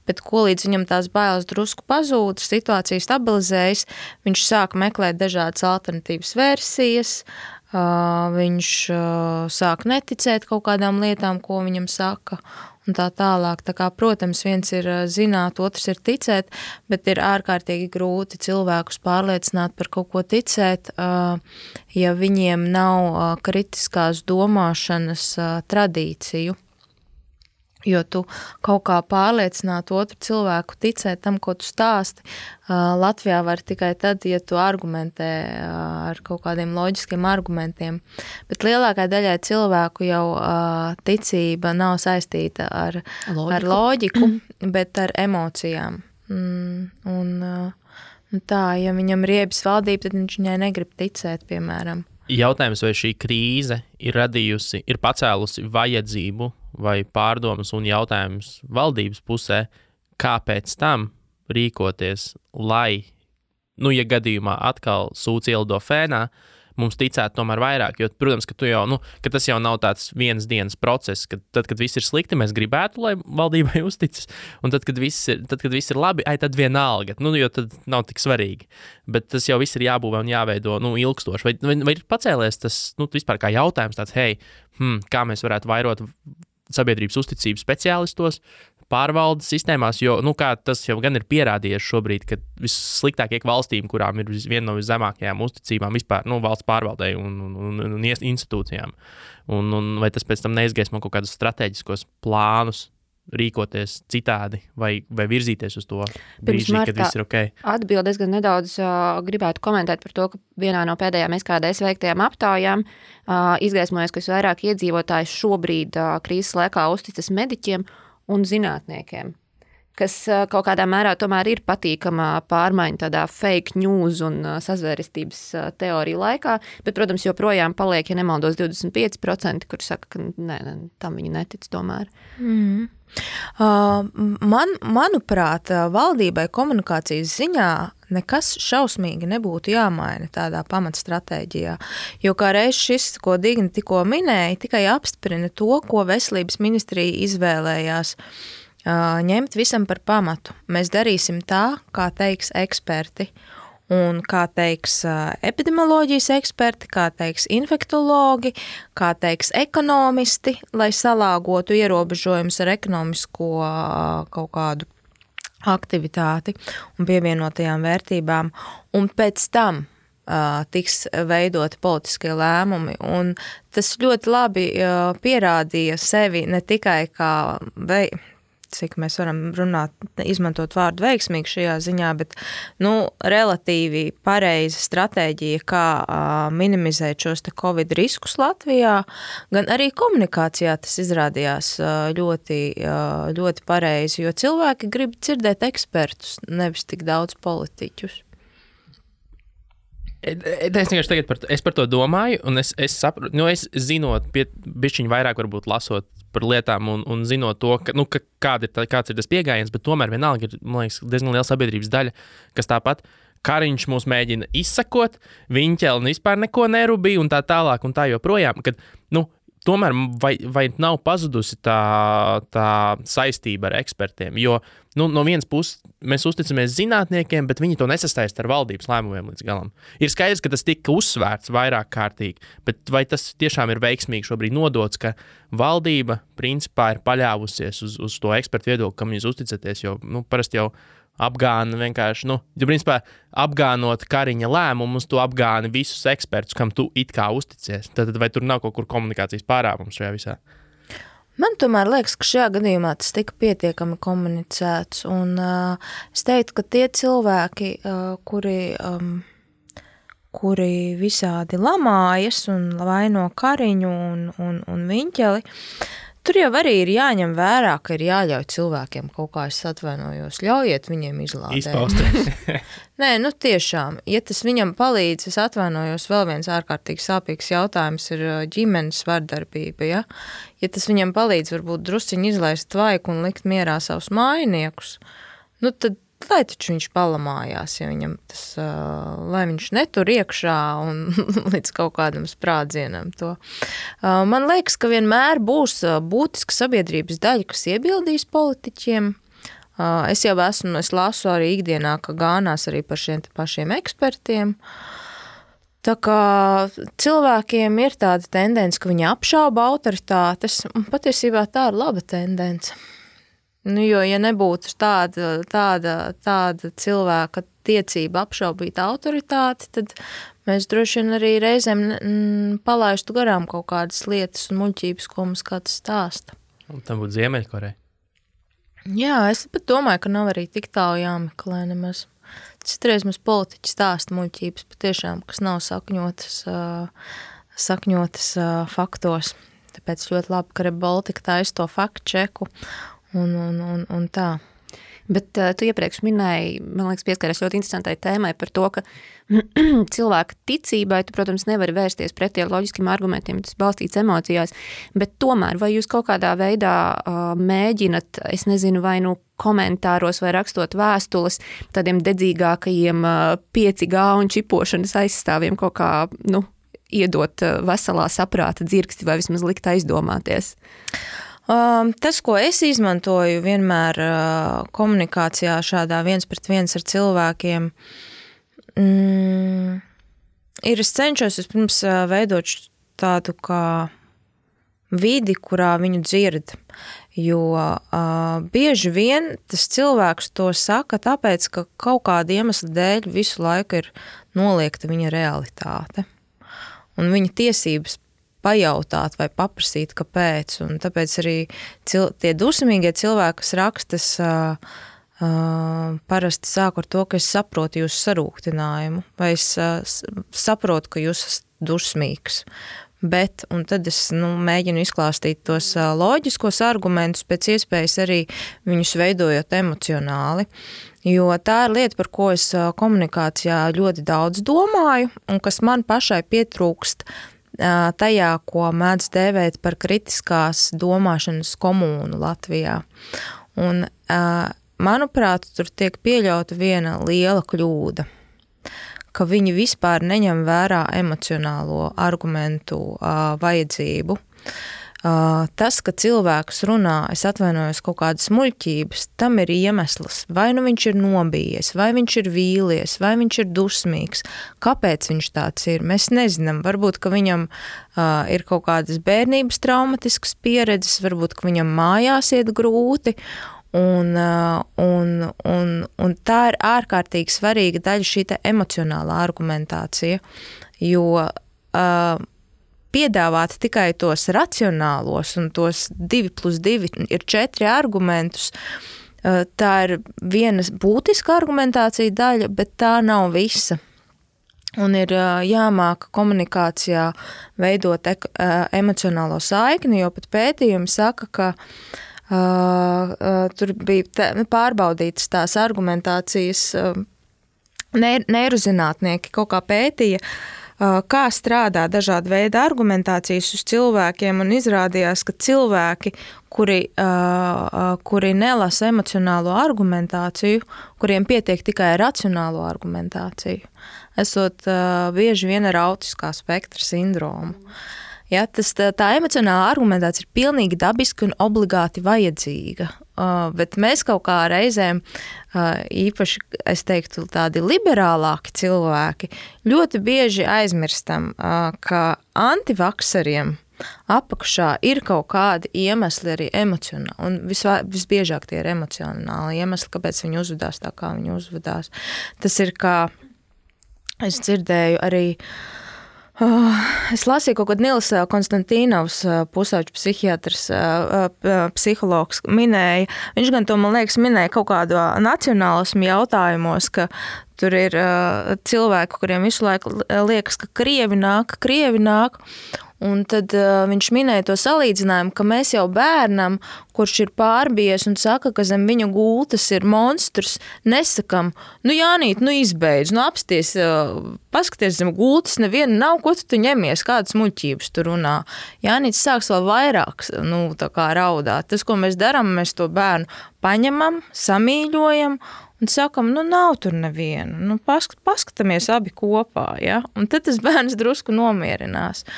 Bet ko līdz viņam tās bailes drusku pazūd, situācija stabilizējas, viņš sāk meklēt dažādas alternatīvas versijas, viņš sāk neticēt kaut kādām lietām, ko viņam saka, un tā tālāk. Tā kā, protams, viens ir zināt, otrs ir ticēt, bet ir ārkārtīgi grūti cilvēkus pārliecināt par kaut ko ticēt, ja viņiem nav kritiskās domāšanas tradīciju. Jo tu kaut kā pārliecināt otru cilvēku ticēt tam, ko tu stāsti. Latvijā var tikai tad, ja tu argumentē ar kaut kādiem loģiskiem argumentiem. Bet lielākai daļai cilvēku jau ticība nav saistīta ar loģiku, bet ar emocijām. Tā, ja viņam riebjas valdība, tad viņš viņai negrib ticēt, piemēram. Jautājums, vai šī krīze ir pacēlusi vajadzību vai pārdomas un jautājums valdības pusē, kāpēc tam rīkoties, lai, ja gadījumā atkal sūds ielido fēnā, mums ticētu tomēr vairāk, jo, protams, ka ka tas jau nav tāds vienas dienas process, ka tad, kad viss ir slikti, mēs gribētu, lai valdībai uzticas, un tad, kad viss ir labi, tad vienalga, jo tad nav tik svarīgi. Bet tas jau viss ir jābūvē un jāveido, ilgstoši. Vai ir pacēlies tas, vispār kā jautājums tāds, kā mēs varētu vairot sabiedrības uzticību speciālistos, pārvaldes sistēmās, jo, kā tas jau gan ir pierādījies šobrīd, ka vissliktākie valstīm, kurām ir viena no viszemākajām uzticībām vispār, valsts pārvaldei un institūcijām. Un vai tas pēc tam neizgaismo kaut kādus strateģiskos plānus rīkoties citādi vai virzīties uz to brīži, kad viss ir ok? Atbildes gan nedaudz gribētu komentēt par to, ka vienā no pēdējām SKDS veiktajām aptaujām izgaismojas, ka visvairāk iedzīvotāji šobrīd krīzes laikā uzticas mediķiem un zinātniekiem, kas kaut kādā mērā tomēr ir patīkama pārmaiņa tādā fake news un sazvērestības teoriju laikā, bet, protams, joprojām paliek, ja nemaldos, 25%, kur saka, ka tam viņi netic tomēr. Manuprāt, valdībai komunikācijas ziņā nekas šausmīgi nebūtu jāmaina tādā pamatstratēģijā, jo kā reiz šis, ko Digna tikko minēja, tikai apstiprina to, ko veselības ministrija izvēlējās ņemt visam par pamatu. Mēs darīsim tā, kā teiks eksperti. Un kā teiks epidemioloģijas eksperti, kā teiks infektologi, kā teiks ekonomisti, lai salāgotu ierobežojumus ar ekonomisko kaut kādu aktivitāti un pievienotajām vērtībām. Un pēc tam tiks veidoti politiskie lēmumi. Un tas ļoti labi pierādīja sevi ne tikai kā cik mēs varam runāt, izmantot vārdu veiksmīgi šajā ziņā, bet relatīvi pareiza stratēģija, kā minimizēt šos te Covid riskus Latvijā, gan arī komunikācijā tas izrādījās ļoti, ļoti pareizi, jo cilvēki grib dzirdēt ekspertus, nevis tik daudz politiķus. Es vienkārši tagad par to domāju, un es saprotu, es zinot, bišķiņ vairāk varbūt lasot par lietām un zinot to, kāds ir tas pieejams, bet tomēr vienalga ir, man liekas, diezgan liela sabiedrības daļa, kas tāpat Kariņš mūs mēģina izsakot, Viņķelni vispār neko nerubīja un tā tālāk un tā joprojām, kad, tomēr vai nav pazudusi tā saistība ar ekspertiem, jo, no vienas puses mēs uzticamies zinātniekiem, bet viņi to nesastaist ar valdības lēmumiem līdz galam. Ir skaidrs, ka tas tika uzsvērts vairāk kārtīgi, bet vai tas tiešām ir veiksmīgi šobrīd nodots, ka valdība principā ir paļāvusies uz to ekspertu viedokli, kam jūs uzticaties, jo, parasti jau apgāna vienkārši, jo principā apgānot Kariņa lēmumus, tu apgāni visus ekspertus, kam tu it kā uzticies. Tad vai tur nav kaut kur komunikācijas pārāvums šajā visā? Man tomēr liekas, ka šajā gadījumā tas tika pietiekami komunicēts, un es teiktu, ka tie cilvēki, kuri visādi lamājas un vaino Kariņu un Viņķeli, tur jau arī ir jāņem vērā, ka ir jāļauj cilvēkiem kaut kā, es atvainojos, ļaujiet viņiem izlādēt. Izpausties. Nē, tiešām, ja tas viņam palīdz, es atvainojos, vēl viens ārkārtīgi sāpīgs jautājums ir ģimenes vardarbība, ja? Ja tas viņam palīdz varbūt drusciņi izlaist tvaiku un likt mierā savus mājiniekus, tad lai taču viņš palamājās, ja viņam tas, lai viņš netur iekšā un līdz kaut kādam sprādzienam to. Man liekas, ka vienmēr būs būtiska sabiedrības daļa, kas iebildīs politiķiem. Es lasu arī ikdienā, ka gānās arī par šiem pašiem ekspertiem. Tā kā cilvēkiem ir tāda tendence, ka viņi apšauba autoritātes, un patiesībā tā ir laba tendence. Jo, ja nebūtu tāda cilvēka tiecība apšaubīt autoritāti, tad mēs droši vien arī reizēm palaistu garām kaut kādas lietas un muļķības, ko mums kāds stāsta. Un tam būtu Ziemeļkoreja. Jā, es pat domāju, ka nav arī tik tālu jāmeklē nemaz. Citreiz mums politiķi stāsta muļķības patiešām, kas nav sakņotas faktos. Tāpēc ļoti labi, ka Rebaltika taisa to faktu čeku un tā. Bet tu iepriekš minēji, man liekas, pieskaries ļoti interesantai tēmai par to, ka cilvēka ticībai tu, protams, nevari vērsties pretī ar loģiskiem argumentiem, tas balstīts emocijās, bet tomēr vai jūs kaut kādā veidā mēģinat, es nezinu, vai komentāros vai rakstot vēstules tādiem dedzīgākajiem 5G un čipošanas aizstāvjiem kaut kā, iedot veselā saprāta dzirksti vai vismaz likt aizdomāties? Tas, ko es izmantoju vienmēr komunikācijā šādā 1-pret-1 ar cilvēkiem, ir es cenšos vispirms veidot tādu kā vidi, kurā viņu dzird, jo bieži vien tas cilvēks to saka tāpēc, ka kaut kāda iemesla dēļ visu laiku ir noliegta viņa realitāte un viņa tiesības pajautāt vai paprasīt, kāpēc. Un tāpēc arī tie dusmīgie cilvēki, kas rakstas, parasti sāku ar to, ka es saprotu jūsu sarūktinājumu, vai es saprotu, ka jūs esat dusmīgs. Bet, un tad es mēģinu izklāstīt tos loģiskos argumentus, pēc iespējas arī viņus veidojot emocionāli. Jo tā ir lieta, par ko es komunikācijā ļoti daudz domāju, un kas man pašai pietrūkst tajā, ko mēdz dēvēt par kritiskās domāšanas komūnu Latvijā. Un, manuprāt, tur tiek pieļauta viena liela kļūda, ka viņi vispār neņem vērā emocionālo argumentu vajadzību. Tas, ka cilvēks runā, es atvainojos kaut kādas muļķības, tam ir iemesls. Vai nu viņš ir nobijies, vai viņš ir vīlies, vai viņš ir dusmīgs. Kāpēc viņš tāds ir? Mēs nezinām. Varbūt, ka viņam ir kaut kādas bērnības traumatiskas pieredzes, varbūt, ka viņam mājās iet grūti. Un tā ir ārkārtīgi svarīga daļa šī te emocionālā argumentācija, jo piedāvāt tikai tos racionālos un tos 2+2 ir 4 argumentus, tā ir viena būtiska argumentācija daļa, bet tā nav visa. Un ir jāmāk komunikācijā veidot emocionālo saikni, jo pat pētījumi saka, ka tur bija pārbaudītas tās argumentācijas, neirozinātnieki kaut kā pētīja, kā strādā dažādi veidi argumentācijas uz cilvēkiem, un izrādījās, ka cilvēki, kuri nelasa emocionālo argumentāciju, kuriem pietiek tikai racionālo argumentāciju, esot bieži vien ar autiskā spektra sindromu. Ja, tā emocionālā argumentācija ir pilnīgi dabiska un obligāti vajadzīga, bet mēs kaut kā reizēm, īpaši, es teiktu, tādi liberālāki cilvēki, ļoti bieži aizmirstam, ka antivakseriem apakšā ir kaut kādi iemesli arī emocionāli, un visbiežāk tie ir emocionāli iemesli, kāpēc viņi uzvedās tā, kā viņi uzvedās. Tas ir kā, es dzirdēju arī, es lasīju kaut kad Nils Konstantīnovs, pusauģu psihiatrs, psihologs minēja, viņš gan to, man liekas, minēja kaut kādu nacionālismu jautājumos, ka tur ir cilvēki, kuriem visu laiku liekas, ka krievi nāk, un tad viņš minēja to salīdzinājumu, ka mēs jau bērnam, kurš ir pārbies un saka, ka zem viņa gultas ir monstrs, nesakam, Jānīt, izbeidz, apsties, paskaties zem gultas, neviena nav, ko tu ņemies, kādas muļķības tu runā. Jānīts sāks vēl vairāk, tā kā raudāt. Tas, ko mēs darām, mēs to bērnu paņemam, samīļojam un sakam, nav tur neviena, paskatāmies abi kopā, ja? Un tad tas bērns drusku nomierinās.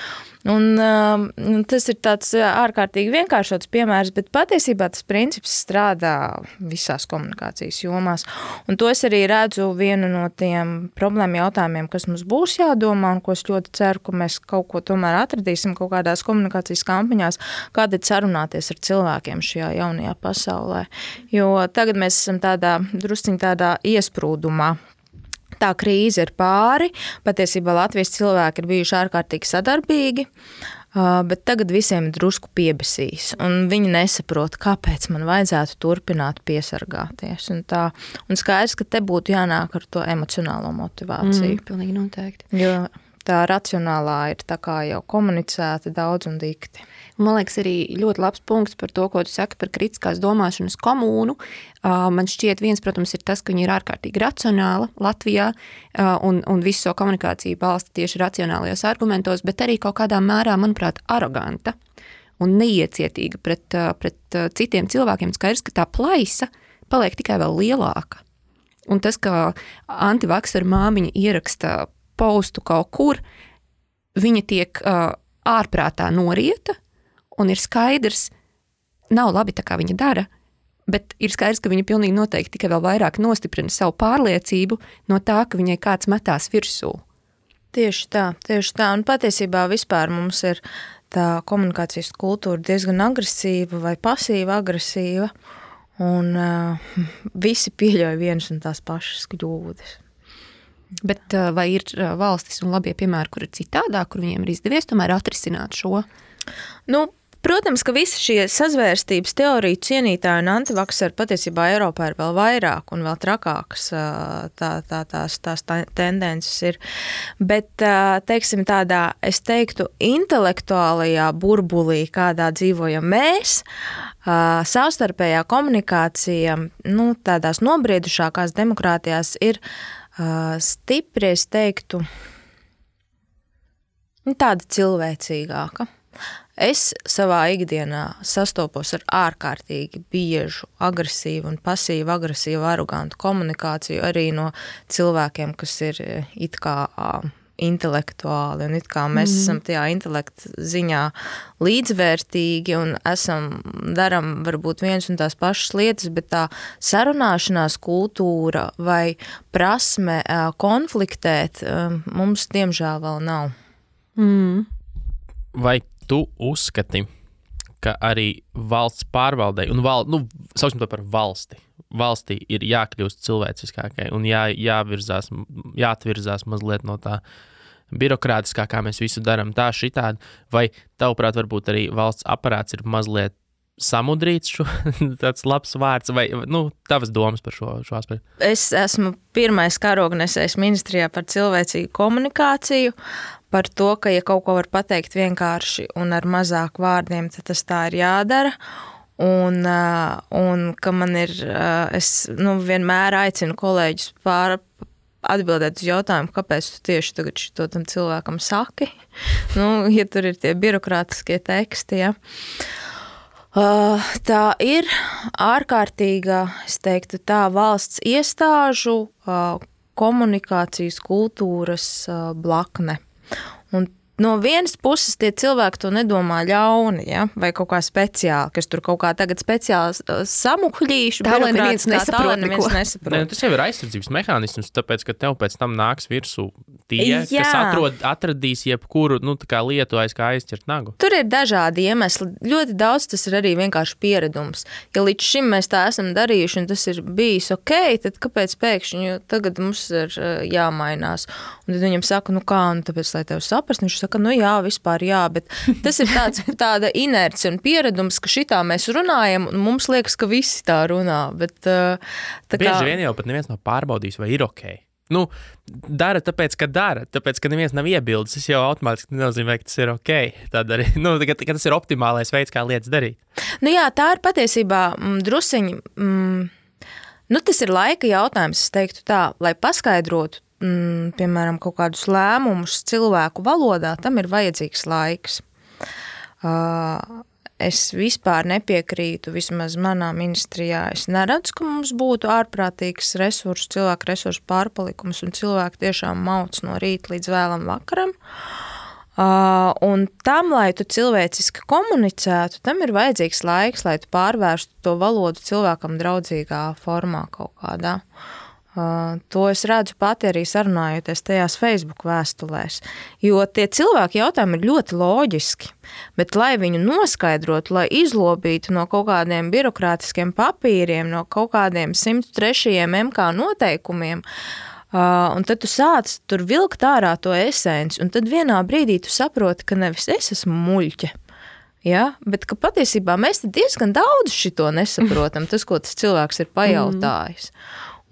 Un tas ir tāds ārkārtīgi vienkāršots piemērs, bet patiesībā tas princips strādā visās komunikācijas jomās. Un to es arī redzu vienu no tiem problēmu jautājumiem, kas mums būs jādomā, un ko es ļoti ceru, ka mēs kaut ko tomēr atradīsim kaut kādās komunikācijas kampaņās, kā tad sarunāties ar cilvēkiem šajā jaunajā pasaulē. Jo tagad mēs esam drusciņ tādā iesprūdumā. Tā krīze ir pāri, patiesībā Latvijas cilvēki ir bijuši ārkārtīgi sadarbīgi, bet tagad visiem ir drusku piebesīs, un viņi nesaprot, kāpēc man vajadzētu turpināt piesargāties. Un skaidrs, ka te būtu jānāk ar to emocionālo motivāciju. Pilnīgi noteikti. Jo tā racionālā ir tā kā jau komunicēta daudz un dikti. Man liekas, arī ļoti labs punkts par to, ko tu saki par kritiskās domāšanas komūnu. Man šķiet, viens, protams, ir tas, ka viņi ir ārkārtīgi racionāli Latvijā un visu savu komunikāciju balsta tieši racionālajos argumentos, bet arī kaut kādā mērā, manuprāt, aroganta un neiecietīga pret citiem cilvēkiem. Skaidrs, ka tā plaisa paliek tikai vēl lielāka. Un tas, ka antivakseru māmiņa ieraksta postu kaut kur, viņa tiek ārprātā norieta, un ir skaidrs, nav labi tā, kā viņa dara, bet ir skaidrs, ka viņa pilnīgi noteikti tikai vēl vairāk nostiprina savu pārliecību no tā, ka viņai kāds metās virsū. Tieši tā. Un patiesībā vispār mums ir tā komunikācijas kultūra diezgan agresīva vai pasīva agresīva, un visi pieļauj vienas un tās pašas kļūdas. Bet vai ir valstis un labie piemēri, kur ir citādāk, kur viņiem ir izdevies tomēr atrisināt šo? Protams, ka visi šie sazvērstības teoriju cienītāji un antivakseri patiesībā Eiropā ir vēl vairāk un vēl trakākas tās tendences ir. Bet, teiksim, tādā, es teiktu, intelektuālajā burbulī, kādā dzīvojam mēs, savstarpējā komunikācija, tādās nobriedušākās demokrātijās ir stipri, es teiktu, tāda cilvēcīgāka. Es savā ikdienā sastopos ar ārkārtīgi biežu, agresīvu un pasīvu, agresīvu, arogantu komunikāciju arī no cilvēkiem, kas ir it kā intelektuāli, un it kā mēs esam tajā intelekta ziņā līdzvērtīgi un daram varbūt viens un tās pašas lietas, bet tā sarunāšanās kultūra vai prasme konfliktēt mums diemžēl vēl nav. Vai tu uzskati, ka arī valsts pārvaldei, un sauksim to par valstī ir jākļūst cilvēciskākai un jāatvirzās mazliet no tā birokrātiskā, kā mēs visu darām tā šitādi, vai tavuprāt varbūt arī valsts aparāts ir mazliet samudrīts tāds labs vārds, vai tavas domas par šo aspektu? Es esmu pirmais karognesējs ministrijā par cilvēcīgu komunikāciju, par to, ka ja kaut ko var pateikt vienkārši un ar mazāk vārdiem, tad tas tā ir jādara. Un ka man ir, es vienmēr aicinu kolēģus atbildēt uz jautājumu, kāpēc tu tieši tagad šito tam cilvēkam saki, ja tur ir tie birokrātiskie teksti, ja. Tā ir ārkārtīga, es teiktu tā, valsts iestāžu komunikācijas kultūras blakne. Un no vienas puses tie cilvēki to nedomā ļauni, ja? Vai kaut kā speciāli, kas tur kaut kā tagad speciāli samuhļīšu. Tā, lai neviens nesaprot neko. Ne, tas jau ir aizsardzības mehānisms, tāpēc, ka tev pēc tam nāks virsū tie, kas atradīs jebkuru tā kā lietu aiz kā aizķert nagu. Tur ir dažādi iemesli. Ļoti daudz tas ir arī vienkārši pieredums. Ja līdz šim mēs tā esam darījuši un tas ir bijis ok, tad kāpēc pēkšņi tagad mums ir jāmainās? Un tad viņam saka, tāpēc, lai tev saprast, viņš saka, jā, vispār jā, bet tas ir tāda inerce un pieredums, ka šitā mēs runājam, un mums liekas, ka visi tā runā, bet Bieži vien jau pat neviens nav pārbaudījis, vai ir ok. Dara tāpēc, ka neviens nav iebildes, tas jau automātiski nenozīmē, ka tas ir ok. Tad arī, ka tas ir optimālais veids, kā lietas darīt. Jā, tā ir patiesībā drusiņi, tas ir laika jautājums, es teiktu tā, lai paskaidrotu, piemēram, kaut kādus lēmumus cilvēku valodā, tam ir vajadzīgs laiks. Es vispār nepiekrītu, vismaz manā ministrijā, es neredzu, ka mums būtu ārprātīgs cilvēku resursu pārpalikums un cilvēki tiešām mauc no rīta līdz vēlam vakaram. Un tam, lai tu cilvēciski komunicētu, tam ir vajadzīgs laiks, lai tu pārvērstu to valodu cilvēkam draudzīgā formā kaut kādā. To es redzu pati arī sarunājoties tajās Facebook vēstulēs, jo tie cilvēki jautājumi ir ļoti loģiski, bet lai viņu noskaidrotu, lai izlobītu no kaut kādiem birokrātiskiem papīriem, no kaut kādiem 103. MK noteikumiem, un tad tu sāc tur vilkt ārā to esenci, un tad vienā brīdī tu saproti, ka nevis es esmu muļķe, ja, bet ka patiesībā mēs diezgan daudz šito nesaprotam, tas, ko tas cilvēks ir pajautājis.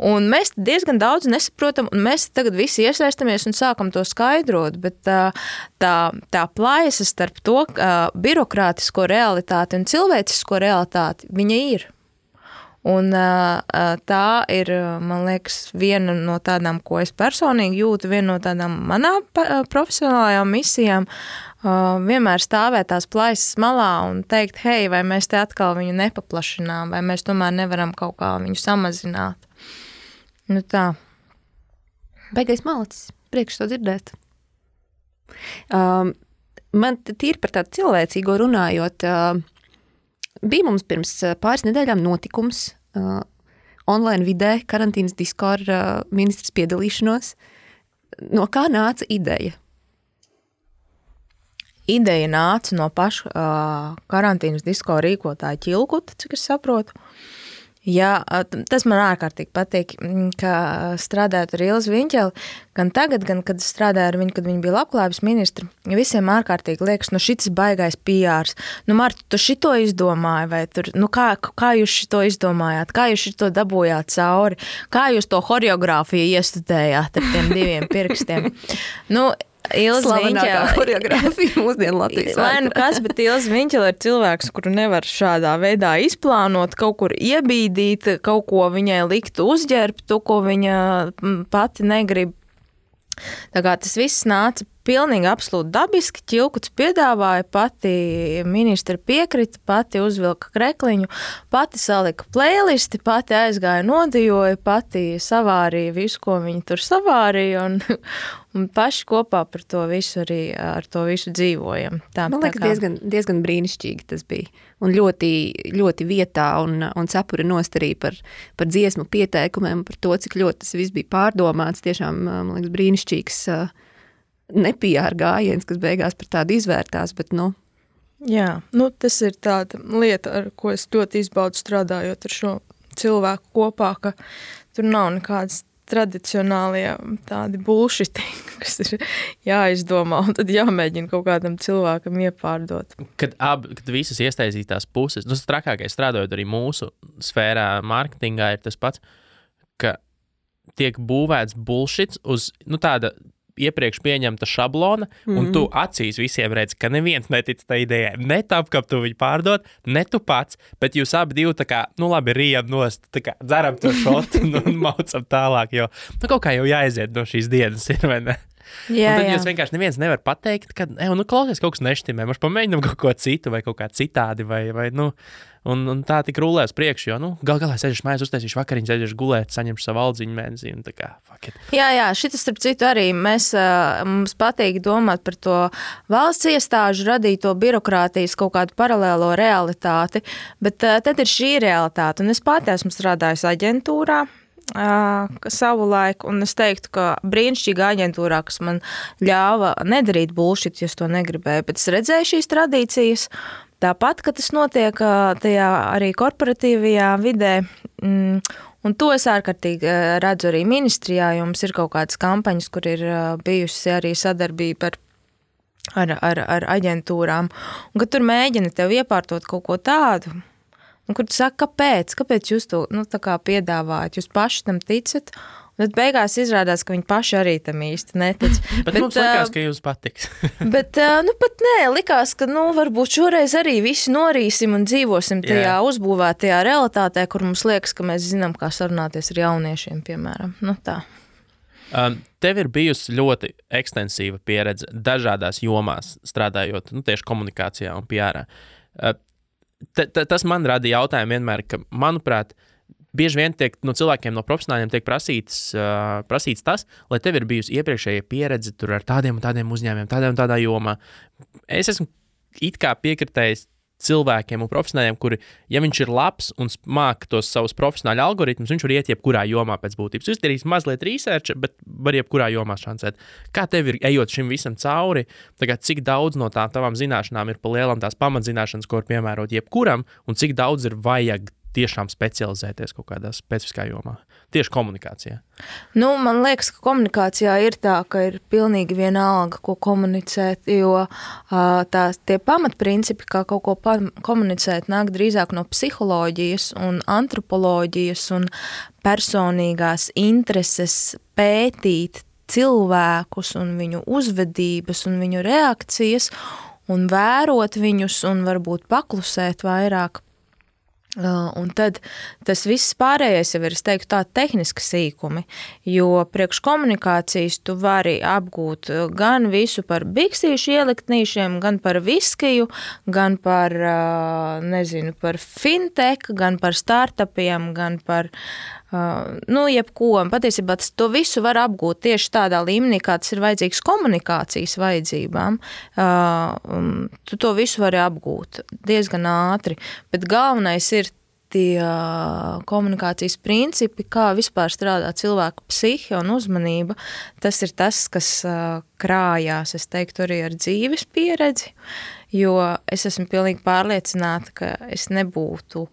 Un mēs diezgan daudz nesaprotam, un mēs tagad visi iesaistamies un sākam to skaidrot, bet tā plaisa starp to birokrātisko realitāti un cilvēcisko realitāti, viņa ir. Un tā ir, man liekas, viena no tādām, ko es personīgi jūtu, viena no tādām manām profesionālajām misijām, vienmēr stāvēt tās plaisas malā un teikt, hei, vai mēs te atkal viņu nepaplašinām, vai mēs tomēr nevaram kaut kā viņu samazināt. Tā. Baigais malacis, priekš to dzirdēt. Man tīri par tādu cilvēcīgo runājot, bija mums pirms pāris nedēļām notikums online vidē, karantīnas disko ar ministras piedalīšanos. No kā nāca ideja? Ideja nāca no paša karantīnas disko rīkotāja Ķilkuta, cik es saprotu. Jā, tas man ārkārtīgi patīk, ka strādājot ar Ilzi Viņķeli, gan tagad, gan kad strādāju ar viņu, kad viņa bija labklājības ministra, visiem ārkārtīgi liekas, šitas baigais PRs. Marta, tu šito izdomāji, vai tur, kā jūs šito izdomājāt, kā jūs šito dabūjāt cauri, kā jūs to horeogrāfiju iestudējāt ar tiem diviem pirkstiem. Slavenākā horeogrāfija mūsdienu Latvijas vēsturē. Kas, bet Ilze Viņķele ir cilvēks, kuru nevar šādā veidā izplānot, kaut kur iebīdīt, kaut ko viņai likt uzģērbt, to, ko viņa pati negrib. Tā kā tas viss nāca pilnīgi absolūti dabiski. Ķilkuts piedāvāja, pati ministra piekrita, pati uzvilka krekliņu, pati salika playlisti, pati aizgāja nodijoja, pati savārīja visu, ko viņi tur savārīja, un paši kopā par to visu arī ar to visu dzīvojam. Man liekas, diezgan brīnišķīgi tas bija. Un ļoti, ļoti vietā un cepura nostarī par dziesmu pieteikumiem, par to, cik ļoti tas viss bija pārdomāts. Tiešām, man liekas, brīnišķīgs nepijāra gājiens, kas beigās par tādu izvērtās, bet, Jā, tas ir tāda lieta, ar ko es ļoti izbaudu strādājot ar šo cilvēku kopā, ka tur nav nekādas tradicionālie tādi bullshiti, kas ir jāizdomā un tad jāmēģina kaut kādam cilvēkam iepārdot. Kad visas iesaistītās puses, tas trakākais strādājot arī mūsu sfērā, mārketingā ir tas pats, ka tiek būvēts bullshits uz tāda iepriekš pieņemta šablona, un tu acīs visiem redzi, ka neviens netic tai idejai. Ne tāp, ka tu viņu pārdod, ne tu pats, bet jūs abi divi tā kā, labi, rijam nost, tā kā dzeram to šotu un maucam tālāk, jo kaut kā jau jāaiziet no šīs dienas ir, vai ne? Jā, un tad jūs vienkārši neviens nevar pateikt, ka, klausies, kaut kas neštimē, mums pamēģinam kaut ko citu vai kaut kā citādi, vai un tā tik rulē uz priekšu, jo, galā sēžašu mājās, uztaisīšu vakariņu, sēžašu gulēt, saņemšu savu aldziņu mēnesī, un tā kā, fuck it. Jā, šitas, starp citu, arī mums patīk domāt par to valsts iestāžu radīto birokrātijas kaut kādu paralēlo realitāti, bet tad ir šī realitāte, un es pati esmu strādājusi aģentūrā, savu laiku, un es teiktu, ka brīnišķīga aģentūrā, kas man ļāva nedarīt bullshit, ja es to negribēju, bet es redzēju šīs tradīcijas, tāpat, ka tas notiek tajā arī korporatīvajā vidē, un to es ārkārtīgi redzu arī ministrijā, jo mums ir kaut kādas kampaņas, kur ir bijusi arī sadarbība ar aģentūrām, un ka tur mēģina tev iepārtot kaut ko tādu, un kur tu saki, kāpēc jūs to tā kā piedāvājat, jūs paši tam ticat, un tad beigās izrādās, ka viņi paši arī tam īsti netic. bet mums likās, ka jums patiks. bet, pat nē, likās, ka, varbūt šoreiz arī visi norīsim un dzīvosim tajā uzbūvētajā realitātē, kur mums liekas, ka mēs zinām, kā sarunāties ar jauniešiem, piemēram. Tā. Tev ir bijusi ļoti ekstensīva pieredze dažādās jomās, strādājot tieši komunikācijā un PR-ā. Tas man rada jautājumu vienmēr, ka, manuprāt, bieži vien tiek no cilvēkiem, no profesionāļiem tiek prasīts tas, lai tev ir bijusi iepriekšējā pieredze tur ar tādiem un tādiem uzņēmumiem, tādā jomā. Es esmu it kā piekritējis cilvēkiem un profesionāļiem, kuri, ja viņš ir labs un māk tos savus profesionāļu algoritmus, viņš var iet jebkurā jomā pēc būtības. Jūs darīs mazliet research, bet var jebkurā jomā šancēt. Kā tev ir, ejot šim visam cauri, tagad cik daudz no tavām zināšanām ir pa lielam tās pamatzināšanas, ko var piemērot jebkuram, un cik daudz ir vajag tiešām specializēties kaut kādā specifiskā jomā? Tieši komunikācijā. Man liekas, ka komunikācijā ir tā, ka ir pilnīgi vienalga, ko komunicēt, jo tie pamatprincipi, kā kaut ko komunicēt, nāk drīzāk no psiholoģijas un antropoloģijas un personīgās intereses pētīt cilvēkus un viņu uzvedības un viņu reakcijas un vērot viņus un varbūt paklusēt vairāk. Un tad tas viss pārējais jau ir, es teiktu, tā tehniski sīkumi, jo priekš komunikācijas tu vari apgūt gan visu par biksīšu ieliktnīšiem, gan par viskiju, gan par, par fintech, gan par startupiem, gan par jebko. Patiesībā to visu var apgūt tieši tādā līmenī, kā tas ir vajadzīgs komunikācijas vajadzībām. Tu to visu vari apgūt diezgan ātri, bet galvenais ir tie komunikācijas principi, kā vispār strādā cilvēku psihe un uzmanība. Tas ir tas, kas krājās, es teiktu, arī ar dzīves pieredzi, jo es esmu pilnīgi pārliecināta, ka es nebūtu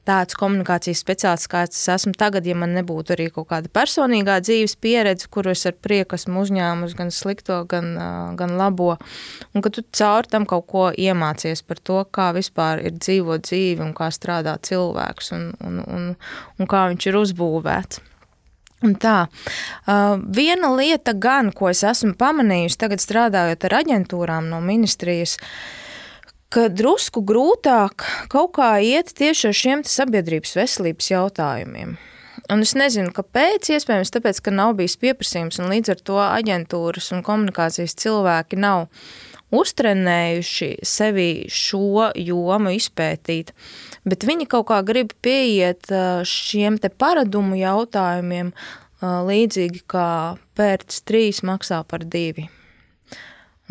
tāds komunikācijas speciālists, kāds es esmu tagad, ja man nebūtu arī kaut kāda personīgā dzīves pieredze, kuru es ar prieku esmu uzņēmusi gan slikto, gan labo, un ka tu caur tam kaut ko iemācies par to, kā vispār ir dzīvot dzīvi un kā strādā cilvēks un kā viņš ir uzbūvēts. Un tā, viena lieta gan, ko es esmu pamanījusi tagad strādājot ar aģentūrām no ministrijas, ka drusku grūtāk kaut kā iet tieši ar šiem sabiedrības veselības jautājumiem. Un es nezinu, kāpēc, iespējams, tāpēc, ka nav bijis pieprasījums, un līdz ar to aģentūras un komunikācijas cilvēki nav uztrenējuši sevi šo jomu izpētīt, bet viņi kaut kā grib pieiet šiem te paradumu jautājumiem līdzīgi kā pērts 3 maksā par 2.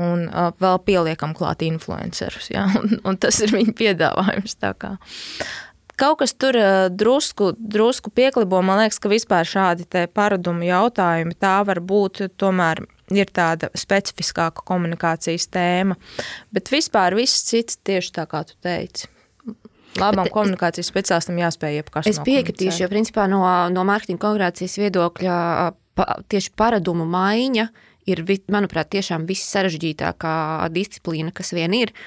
Un vēl pieliekam klāt influencerus, ja? un tas ir viņa piedāvājums. Tā kā. Kaut kas tur drusku pieklibo, man liekas, ka vispār šādi te paradumu jautājumi, tā var būt tomēr ir tāda specifiskāka komunikācijas tēma, bet vispār viss cits tieši tā, kā tu teici. Labam komunikācijas speciālistam jāspēj jebkas nokomunicēt. Es piekritīšu, jo principā no mārketinga komunikācijas viedokļa tieši paradumu maiņa ir, manuprāt, tiešām viss sarežģītākā disciplīna, kas vien ir.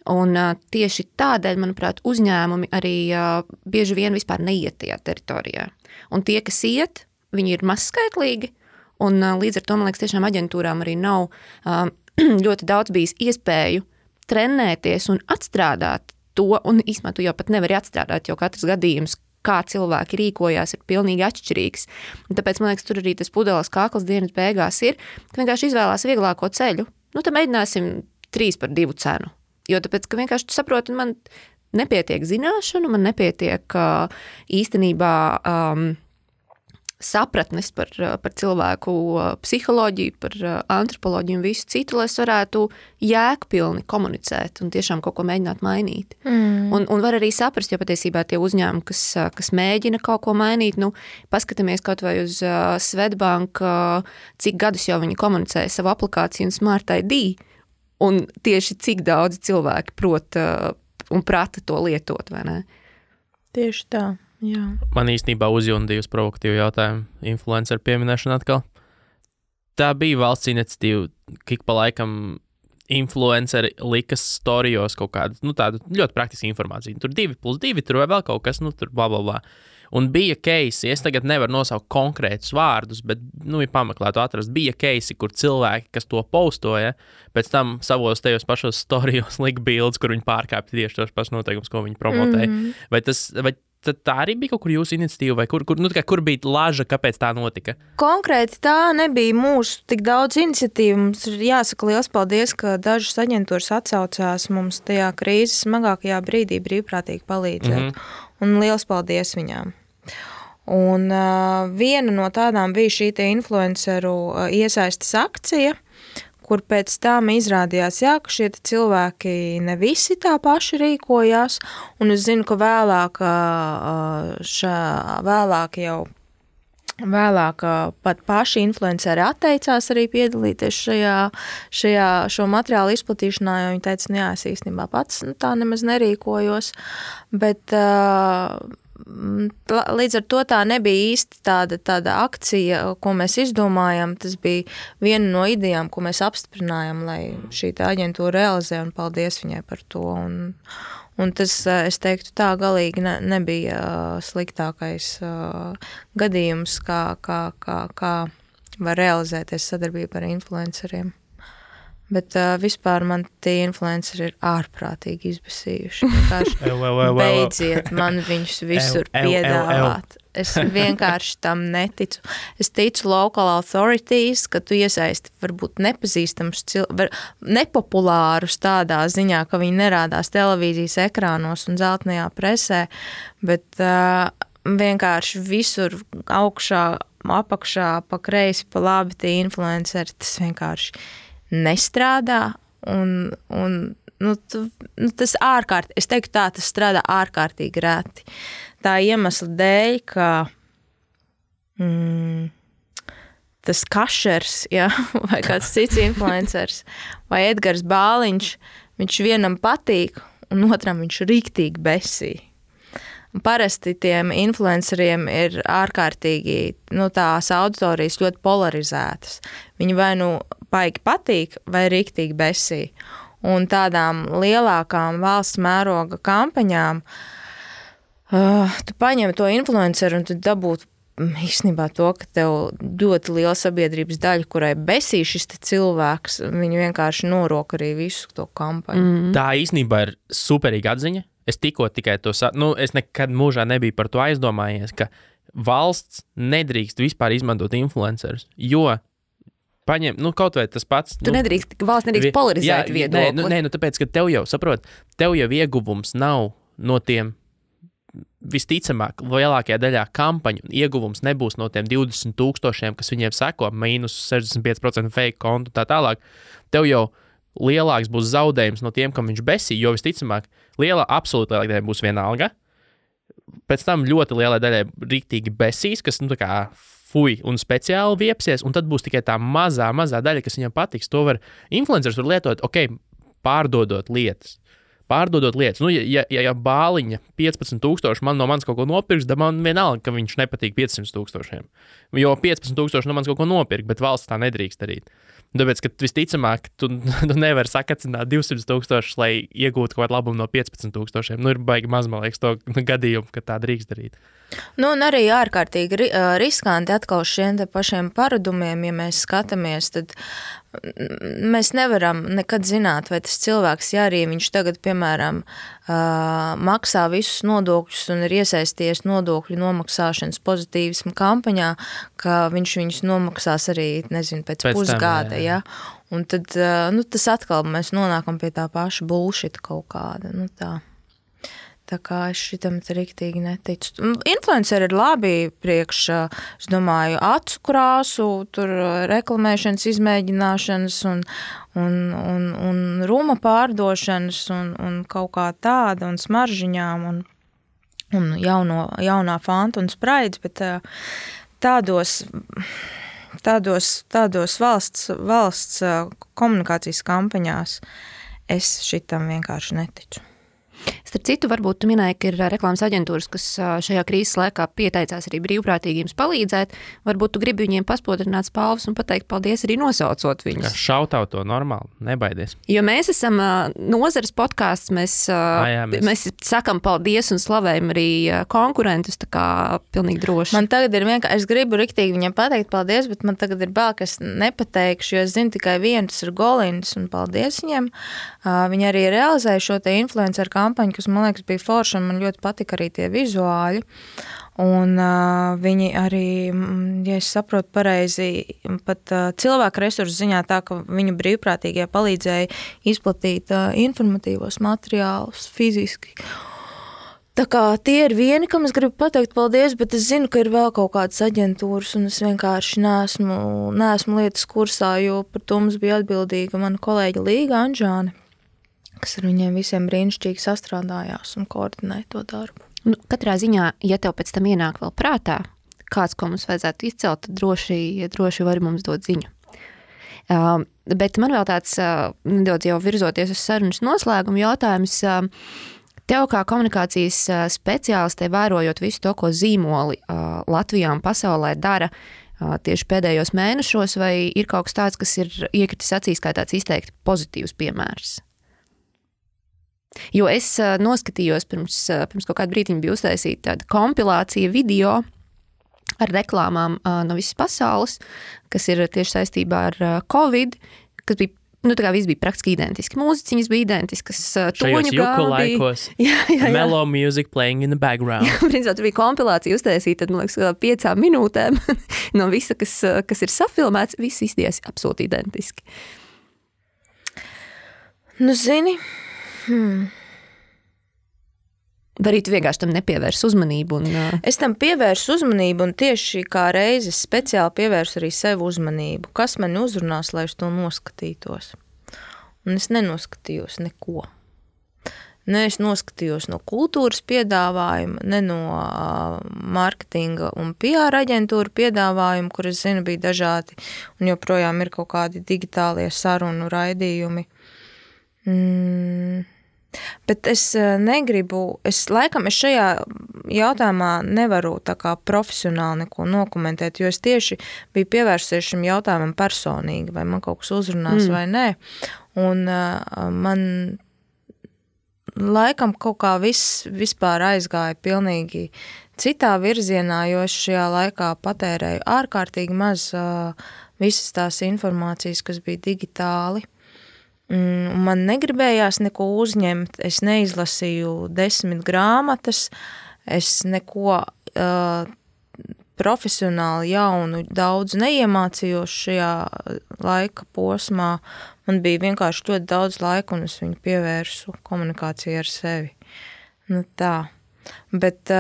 Un tieši tādēļ, manuprāt, uzņēmumi arī bieži vien vispār neiet tajā teritorijā. Un tie, kas iet, viņi ir mazskaitlīgi, un līdz ar to, man liekas, tiešām aģentūrām arī nav ļoti daudz bijis iespēju trenēties un atstrādāt to, un īstenībā tu jau pat nevari atstrādāt, jo katrs gadījums, kā cilvēki rīkojās, ir pilnīgi atšķirīgs. Un tāpēc, man liekas, tur arī tas pudeles kakls dienas beigās ir, ka vienkārši izvēlās vieglāko ceļu. Nu, tad mēģināsim 3 par 2 cenu. Jo tāpēc, ka vienkārši tu saproti, man nepietiek zināšanu, man nepietiek īstenībā sapratnes par cilvēku psiholoģiju, par antropoloģiju un visu citu, lai es varētu jēgpilni komunicēt un tiešām kaut ko mēģināt mainīt. Un var arī saprast, jo patiesībā tie uzņēmumi, kas mēģina kaut ko mainīt, nu, paskatāmies kaut vai uz Swedbank, cik gadus jau viņi komunicēja savu aplikāciju un Smart ID, un tieši cik daudz cilvēki prot un prata to lietot, vai ne? Tieši tā. Jā. Man īstenībā uzjundīja uz provokatīvu jautājumu influenceru pieminēšanu atkal. Tā bija valsts iniciatīva, ka pa laikam influenceri likas storijos kaut kādu, nu tādu ļoti praktisku informāciju. Tur 2+2, tur vai vēl kaut kas, nu tur bla bla bla. Un bija case, es tagad nevaru nosaukt konkrētus vārdus, bet, nu, ja pameklētu atrast, bija case, kur cilvēki, kas to postoja, pēc tam savos tajos pašos storijos lika bildes, kur viņi pārkāpja tieši tos pašus noteikumus, ko viņi promotēja. Vai tā arī bija kaut kur jūsu iniciatīva, vai kur bija laža, kāpēc tā notika? Konkrēti tā nebija mūsu tik daudz iniciatīvu. Mums ir jāsaka liels paldies, ka dažas aģentūras atsaucās mums tajā krīzes smagākajā brīdī brīvprātīgi palīdzēt. Un liels paldies viņām. Un viena no tādām bija šī te influenceru iesaistes akcija, kur pēc tam izrādījās, jā, ka šie cilvēki ne visi tā paši rīkojās, un es zinu, ka vēlāk pat paši influenceri atteicās arī piedalīties šo materiālu izplatīšanā, jo viņi teica, jā, es īstenībā pats tā nemaz nerīkojos, bet līdz ar to tā nebija īsti tāda akcija, ko mēs izdomājam. Tas bija viena no idejām, ko mēs apstiprinājām, lai šī aģentūra realizē, un paldies viņai par to. Un tas, es teiktu, tā galīgi nebija sliktākais gadījums, kā var realizēties sadarbība ar influenceriem. Bet vispār man tie influenceri ir ārprātīgi izbasījuši. Beidziet man viņus visur piedāvāt. Es vienkārši tam neticu. Es ticu local authorities, ka tu iesaisti varbūt nepazīstams nepopulārus tādā ziņā, ka viņi nerādās televīzijas ekrānos un zeltainajā presē, bet vienkārši visur augšā, apakšā, pa kreisi, pa labi tie influenceri, tas vienkārši nestrādā, un tas ārkārtīgi, es teiktu tā, tas strādā ārkārtīgi reti. Tā iemesla dēļ, ka tas Kašers, ja, vai kāds cits influencers, vai Edgars Bāliņš, viņš vienam patīk, un otram viņš riktīgi besī. Parasti tiem influenceriem ir ārkārtīgi, tās auditorijas ļoti polarizētas. Viņi vai paigi patīk, vai riktīgi besī. Un tādām lielākām valsts mēroga kampaņām tu paņem to influenceru un tu dabūtu īstenībā to, ka tev ļoti liela sabiedrības daļa, kurai besī šis cilvēks, viņi vienkārši norok arī visu to kampaņu. Tā īstenībā ir superīga atziņa. Es tikai to es nekad mūžā nebiju par to aizdomājies, ka valsts nedrīkst vispār izmantot influencerus, jo paņem, kaut vai tas pats. Valsts nedrīkst polarizēt viedokli. Tāpēc, ka tev jau ieguvums nav no tiem, visticamāk, lielākajā daļā kampaņu ieguvums nebūs no tiem 20,000, kas viņiem seko, mīnus 65% fake kontu tā tālāk. Tev jau lielāks būs zaudējums no tiem, kam viņš besī, jo visticamāk, absolūti lielākā daļa būs vienalga. Pēc tam ļoti lielai daļai riktīgi besīs, kas, tā kā fuj un speciāli viepsies, un tad būs tikai tā mazā daļa, kas viņam patiks. To influencers var lietot, pārdodot lietas. Ja bāliņa 15,000 man no manis kaut ko nopirks, tad man vienalga, ka viņš nepatīk 500,000. Jo 15,000 no manis kaut ko nopirkt, bet valsts tā nedrīkst darīt. Tāpēc, ka visticamāk, tu nevari sakacināt 200,000, lai iegūtu kaut kādu labumu no 15,000. Ir baigi maz, man liekas, to gadījumu, ka tā drīkst darīt. Un arī ārkārtīgi riskanti atkal šiem te pašiem paradumiem, ja mēs skatāmies, tad mēs nevaram nekad zināt, vai tas cilvēks, ja arī viņš tagad, piemēram, maksā visus nodokļus un ir iesaisties nodokļu nomaksāšanas pozitīvismu kampaņā, ka viņš viņus nomaksās arī, pēc pusgada, ja? Un tad, tas atkal mēs nonākam pie tā paša bullshit kaut kāda, tā. Tā kā es šitam riktīgi neticu. Influenceri ir labi priekš, es domāju, acu krāsu, tur reklamēšanas izmēģināšanas un ruma pārdošanas un kaut kā tāda un smaržiņām un jaunā Fanta un Spraids, bet tādos valsts komunikācijas kampaņās es šitam vienkārši neticu. Starp citu, varbūt tu minēji, ka ir reklāmas aģentūras, kas šajā krīzes laikā pieteicās arī brīvprātīgiem palīdzēt. Varbūt tu gribi viņiem paspodrināt spalvas un pateikt paldies arī nosaucot viņus. Šautau to normāli, nebaidies. Jo mēs esam nozares podcasts, mēs sakam paldies un slavējam arī konkurentus, tā kā pilnīgi droši. Man tagad ir vienkārši, es gribu riktīgi viņiem pateikt paldies, bet man tagad ir bail, ka es nepateikšu, jo es zinu tikai vienu, tas ir Golins, un paldies viņiem. Viņi arī realizēja šo te influenceru kampaņu, kas, man liekas, bija forša, un man ļoti patika arī tie vizuāļi. Un viņi arī, ja es saprotu pareizi, pat cilvēku resursu ziņā tā, ka viņu brīvprātīgie palīdzēja izplatīt informatīvos materiālus fiziski. Tā kā tie ir vieni, kam es gribu pateikt paldies, bet es zinu, ka ir vēl kaut kādas aģentūras, un es vienkārši neesmu lietas kursā, jo par to mums bija atbildīga mana kolēģa Līga Anžāne, kas ar viņiem visiem brīnišķīgi sastrādājās un koordinēja to darbu. Katrā ziņā, ja tev pēc tam ienāk vēl prātā, kāds, ko mums vajadzētu izcelt, tad droši vari mums dot ziņu. Bet man vēl tāds nedaudz jau virzoties uz sarunas noslēgumu jautājums. Tev kā komunikācijas speciālistē, vērojot visu to, ko zīmoli Latvijā un pasaulē dara tieši pēdējos mēnešos, vai ir kaut kas tāds, kas ir iekritis acīs kā tāds izteikti pozitīvs piemērs? Jo es noskatījos pirms kaut kādu brītiņu bija uztaisīta tāda kompilācija video ar reklāmām no visas pasaules, kas ir tieši saistībā ar Covid, kas bija, tā kā viss bija praktiski identiski. Mūziķiņas bija identiskas, toņu gābi. Jā. Mellow music playing in the background. Principā, tur bija kompilācija uztaisīta, tad, man liekas, 5 minūtēm no visa, kas ir safilmēts, viss izties absolūti identiski. Zini... Vai arī tu vienkārši tam nepievērs uzmanību? Es tam pievērsu uzmanību un tieši kā reizes speciāli pievērsu arī sev uzmanību. Kas mani uzrunās, lai es to noskatītos? Un es nenoskatījos neko. Ne es noskatījos no kultūras piedāvājuma, ne no marketinga un PR aģentūra piedāvājuma, kur es zinu bija dažādi un joprojām ir kaut kādi digitālie sarunu raidījumi. Bet es negribu, es šajā jautājumā nevaru tā kā profesionāli neko nokomentēt, jo es tieši biju pievērsies šim jautājumam personīgi, vai man kaut kas uzrunās vai nē. Un man laikam kaut kā vispār aizgāja pilnīgi citā virzienā, jo es šajā laikā patērēju ārkārtīgi maz visas tās informācijas, kas bija digitāli. Man negribējās neko uzņemt, es neizlasīju 10 grāmatas, es neko profesionāli jaunu daudz neiemācījos šajā laika posmā. Man bija vienkārši ļoti daudz laika, un es viņu pievērsu komunikācijai ar sevi. Nu tā. Bet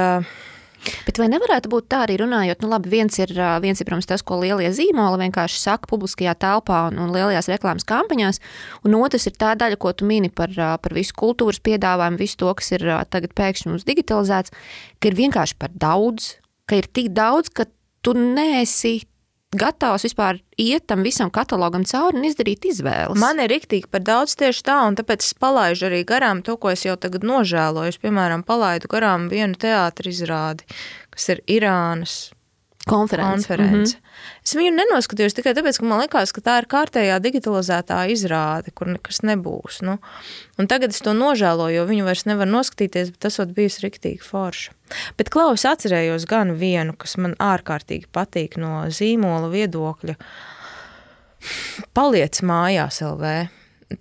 vai nevarētu būt tā arī runājot, nu labi, viens ir, protams, tas, ko lielie zīmoli vienkārši saka publiskajā telpā un lielajās reklāmas kampaņās, un otrs ir tā daļa, ko tu mini par visu kultūras piedāvājumu, visu to, kas ir tagad pēkšņi mums digitalizēts, ka ir vienkārši par daudz, ka ir tik daudz, ka tu neesi gatavs vispār iet tam visam katalogam cauri un izdarīt izvēles. Man ir riktīgi par daudz tieši tā, un tāpēc es palaidu arī garām to, ko es jau tagad nožēloju. Es, piemēram, palaidu garām vienu teātra izrādi, kas ir Irānas konference. Es viņu nenoskatījos tikai tāpēc, ka man likās, ka tā ir kārtējā digitalizētā izrāde, kur nekas nebūs. Nu. Un tagad es to nožēloju, jo viņu vairs nevar noskatīties, bet tas ot bijusi riktīgi forša. Bet Klaus atcerējos gan vienu, kas man ārkārtīgi patīk no zīmola viedokļa. Paliec mājās LV.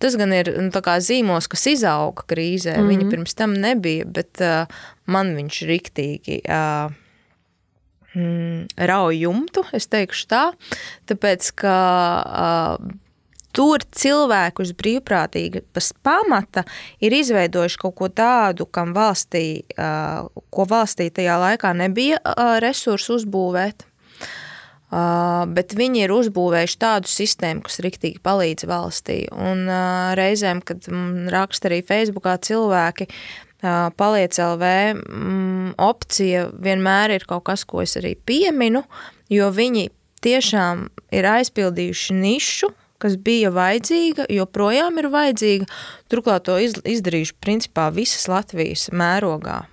Tas gan ir tā kā zīmols, kas izauga krīzē. Viņa pirms tam nebija, bet man viņš riktīgi rauj jumtu, es teikšu tā, tāpēc, ka tur cilvēku uz brīvprātīgas pamata ir izveidojuši kaut ko tādu, kam valstī, ko valstī tajā laikā nebija resursu uzbūvēt, bet viņi ir uzbūvējuši tādu sistēmu, kas riktīgi palīdz valstī. Un reizēm, kad raksta arī Facebookā cilvēki, Paliec LV opcija vienmēr ir kaut kas, ko es arī pieminu, jo viņi tiešām ir aizpildījuši nišu, kas bija vajadzīga, joprojām ir vajadzīga. Turklāt to izdarījuši principā visas Latvijas mērogā.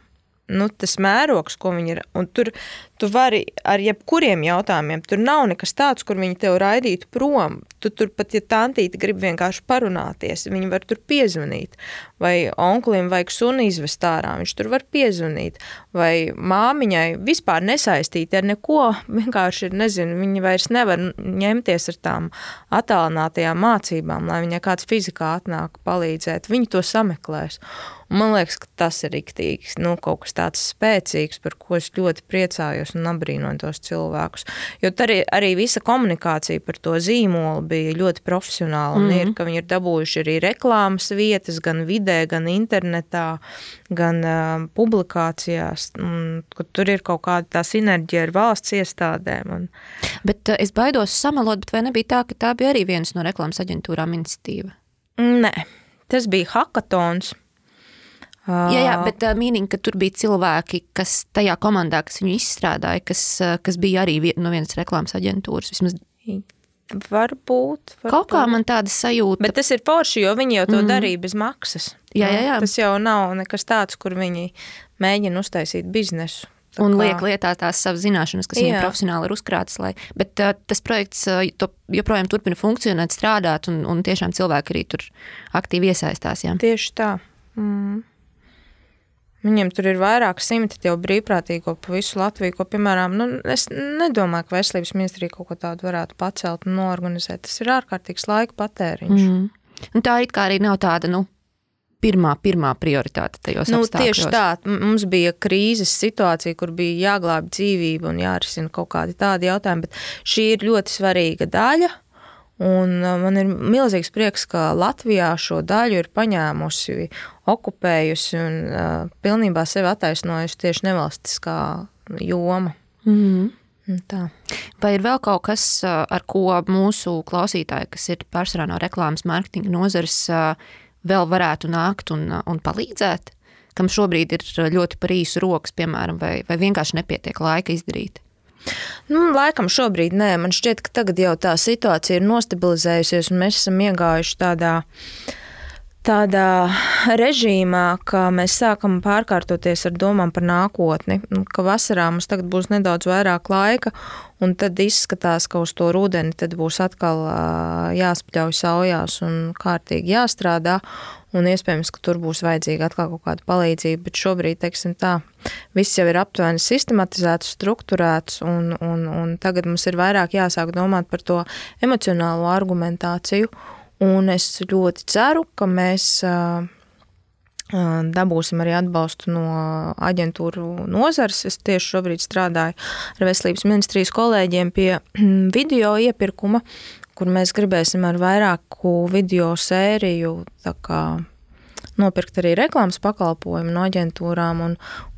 Nu, tas mērogs, ko viņi ir, un tur tu vari ar jebkuriem jautājumiem, tur nav nekas tāds, kur viņi tev raidītu prom. Tu tur pat, ja tantīte grib vienkārši parunāties, viņi var tur piezvanīt. Vai onklim vajag suni izvest ārā, viņš tur var piezvanīt. Vai māmiņai vispār nesaistīti ar neko, vienkārši ir, nezinu, viņi vairs nevar ņemties ar tām attālinātajām mācībām, lai viņai kāds fizikā atnāk palīdzēt. Viņi to sameklēs. Un man liekas, ka tas ir riktīgs, nu, kaut kas tāds spēcīgs, par ko es ļoti priecājos un abrīnoju tos cilvēkus. Jo arī visa komunikācija par to zīmolu bija ļoti profesionāla un ir, ka viņi ir dabūjuši arī reklāmas vietas gan vidē, gan internetā, gan publikācijās, ka tur ir kaut kāda tā sinerģija ar valsts iestādēm. Bet es baidos samelot, bet vai nebija tā, ka tā bija arī vienas no reklāmas aģentūrām iniciatīva? Nē, tas bija hakatons. Jā, bet mīnīgi, ka tur bija cilvēki, kas tajā komandā, kas viņu izstrādāja, kas bija arī no vienas reklāmas aģentūras. Vismaz Varbūt. Kaut kā man tāda sajūta. Bet tas ir forši, jo viņi jau to darīja bez maksas. Jā. Tas jau nav nekas tāds, kur viņi mēģina uztaisīt biznesu. Un liek lietā tās savas zināšanas, kas viņiem profesionāli ir uzkrātas. Bet tas projekts joprojām turpina funkcionēt, strādāt, un tiešām cilvēki arī tur aktīvi iesaistās. Jā. Tieši tā. Viņiem tur ir vairāk simti jau brīvprātīgo pa visu Latviju, ko, piemēram, es nedomāju, ka veselības ministrija kaut ko tādu varētu pacelt un noorganizēt. Tas ir ārkārtīgs laika patēriņš. Un tā it kā arī nav tāda, pirmā prioritāte tajos apstākļos. Tieši tā. Mums bija krīzes situācija, kur bija jāglāb dzīvību un jārisina kaut kādi tādi jautājumi, bet šī ir ļoti svarīga daļa. Un man ir milzīgs prieks, ka Latvijā šo daļu ir paņēmusi, okupējusi un pilnībā sevi attaisnojusi tieši nevalstiskā joma. Tā. Vai ir vēl kaut kas, ar ko mūsu klausītāji, kas ir pārsvarā no reklāmas mārketinga nozares, vēl varētu nākt un palīdzēt? Kam šobrīd ir ļoti par īsu rokas, piemēram, vai vienkārši nepietiek laika izdarīt? Laikam šobrīd nē. Man šķiet, ka tagad jau tā situācija ir nostabilizējusies un mēs esam iegājuši tādā režīmā, ka mēs sākam pārkārtoties ar domām par nākotni, ka vasarā mums tagad būs nedaudz vairāk laika un tad izskatās, ka uz to rudeni tad būs atkal jāspļauj saujās un kārtīgi jāstrādā. Un iespējams, ka tur būs vajadzīga atkal kaut kāda palīdzība, bet šobrīd, teiksim tā, viss jau ir aptuveni sistematizēts, strukturēts, un tagad mums ir vairāk jāsāk domāt par to emocionālo argumentāciju, un es ļoti ceru, ka mēs dabūsim arī atbalstu no aģentūru nozares. Es tieši šobrīd strādāju ar Veselības ministrijas kolēģiem pie video iepirkuma, kur mēs gribēsim ar vairāku video sēriju nopirkt arī reklāmas pakalpojumu no aģentūrām, un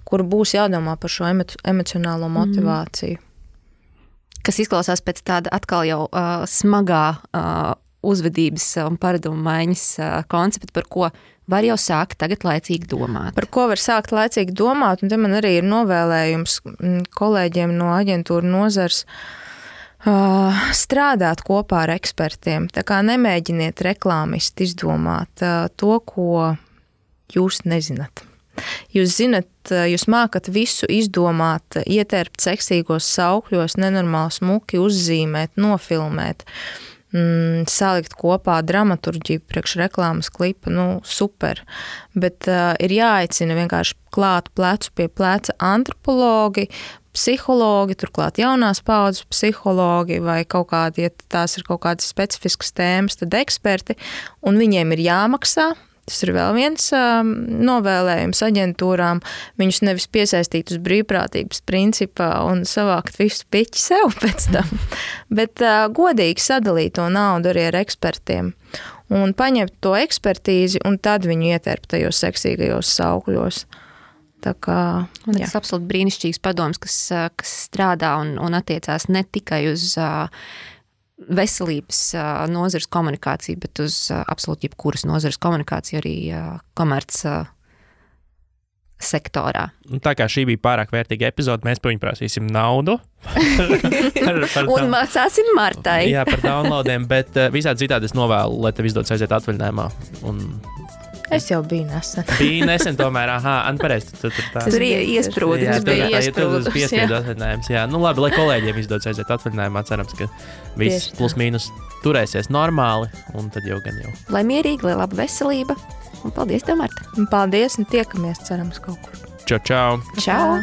kur būs jādomā par šo emocionālo motivāciju. Kas izklausās pēc tāda atkal jau smagā uzvedības un paradumu maiņas koncepta, par ko var jau sākt tagad laicīgi domāt. Par ko var sākt laicīgi domāt, un te man arī ir novēlējums kolēģiem no aģentūra nozars strādāt kopā ar ekspertiem. Tā kā nemēģiniet reklāmisti izdomāt to, ko jūs nezināt. Jūs zinat, jūs mākat visu izdomāt, ietērpt seksīgos saukļos, nenormāli smuki uzzīmēt, nofilmēt, salikt kopā dramaturģiju priekš reklāmas klipa, super. Bet ir jāaicina vienkārši klāt plecu pie pleca antropologi, psihologi, turklāt jaunās paudzes psihologi vai kaut kādi, ja tās ir kaut kādas specifiskas tēmas, tad eksperti, un viņiem ir jāmaksā. Tas ir vēl viens novēlējums aģentūrām, viņus nevis piesaistīt uz brīvprātības principā un savākt visu piķi sev pēc tam, bet godīgi sadalīt to naudu arī ar ekspertiem un paņemt to ekspertīzi un tad viņu ietērpt tajos seksīgajos saukļos. Tā kā, tas absolūti brīnišķīgs padoms, kas strādā un attiecās ne tikai uz veselības nozares komunikāciju, bet uz absolūti jebkuras nozares komunikāciju arī komerc sektorā. Tā kā šī bija pārāk vērtīga epizode, mēs par viņu prasīsim naudu. Un maksāsim Martai. Jā, par downloadiem, bet visādi citādi es novēlu, lai tev izdodas aiziet atvaļinājumā. Es jau biju nesen. Bija nesen tomēr, pareizi. Tas bija iesprūdums. Tas bija piespiedu atvaļinājums, jā. Nu labi, lai kolēģiem izdodas aiziet atvaļinājumā, cerams, ka viss plus mīnus turēsies normāli, un tad jau gan jau. Lai mierīgi, lai laba veselība, un paldies tev, Marta. Paldies, un tiekamies, cerams, kaut kur. Čau, čau. Čau.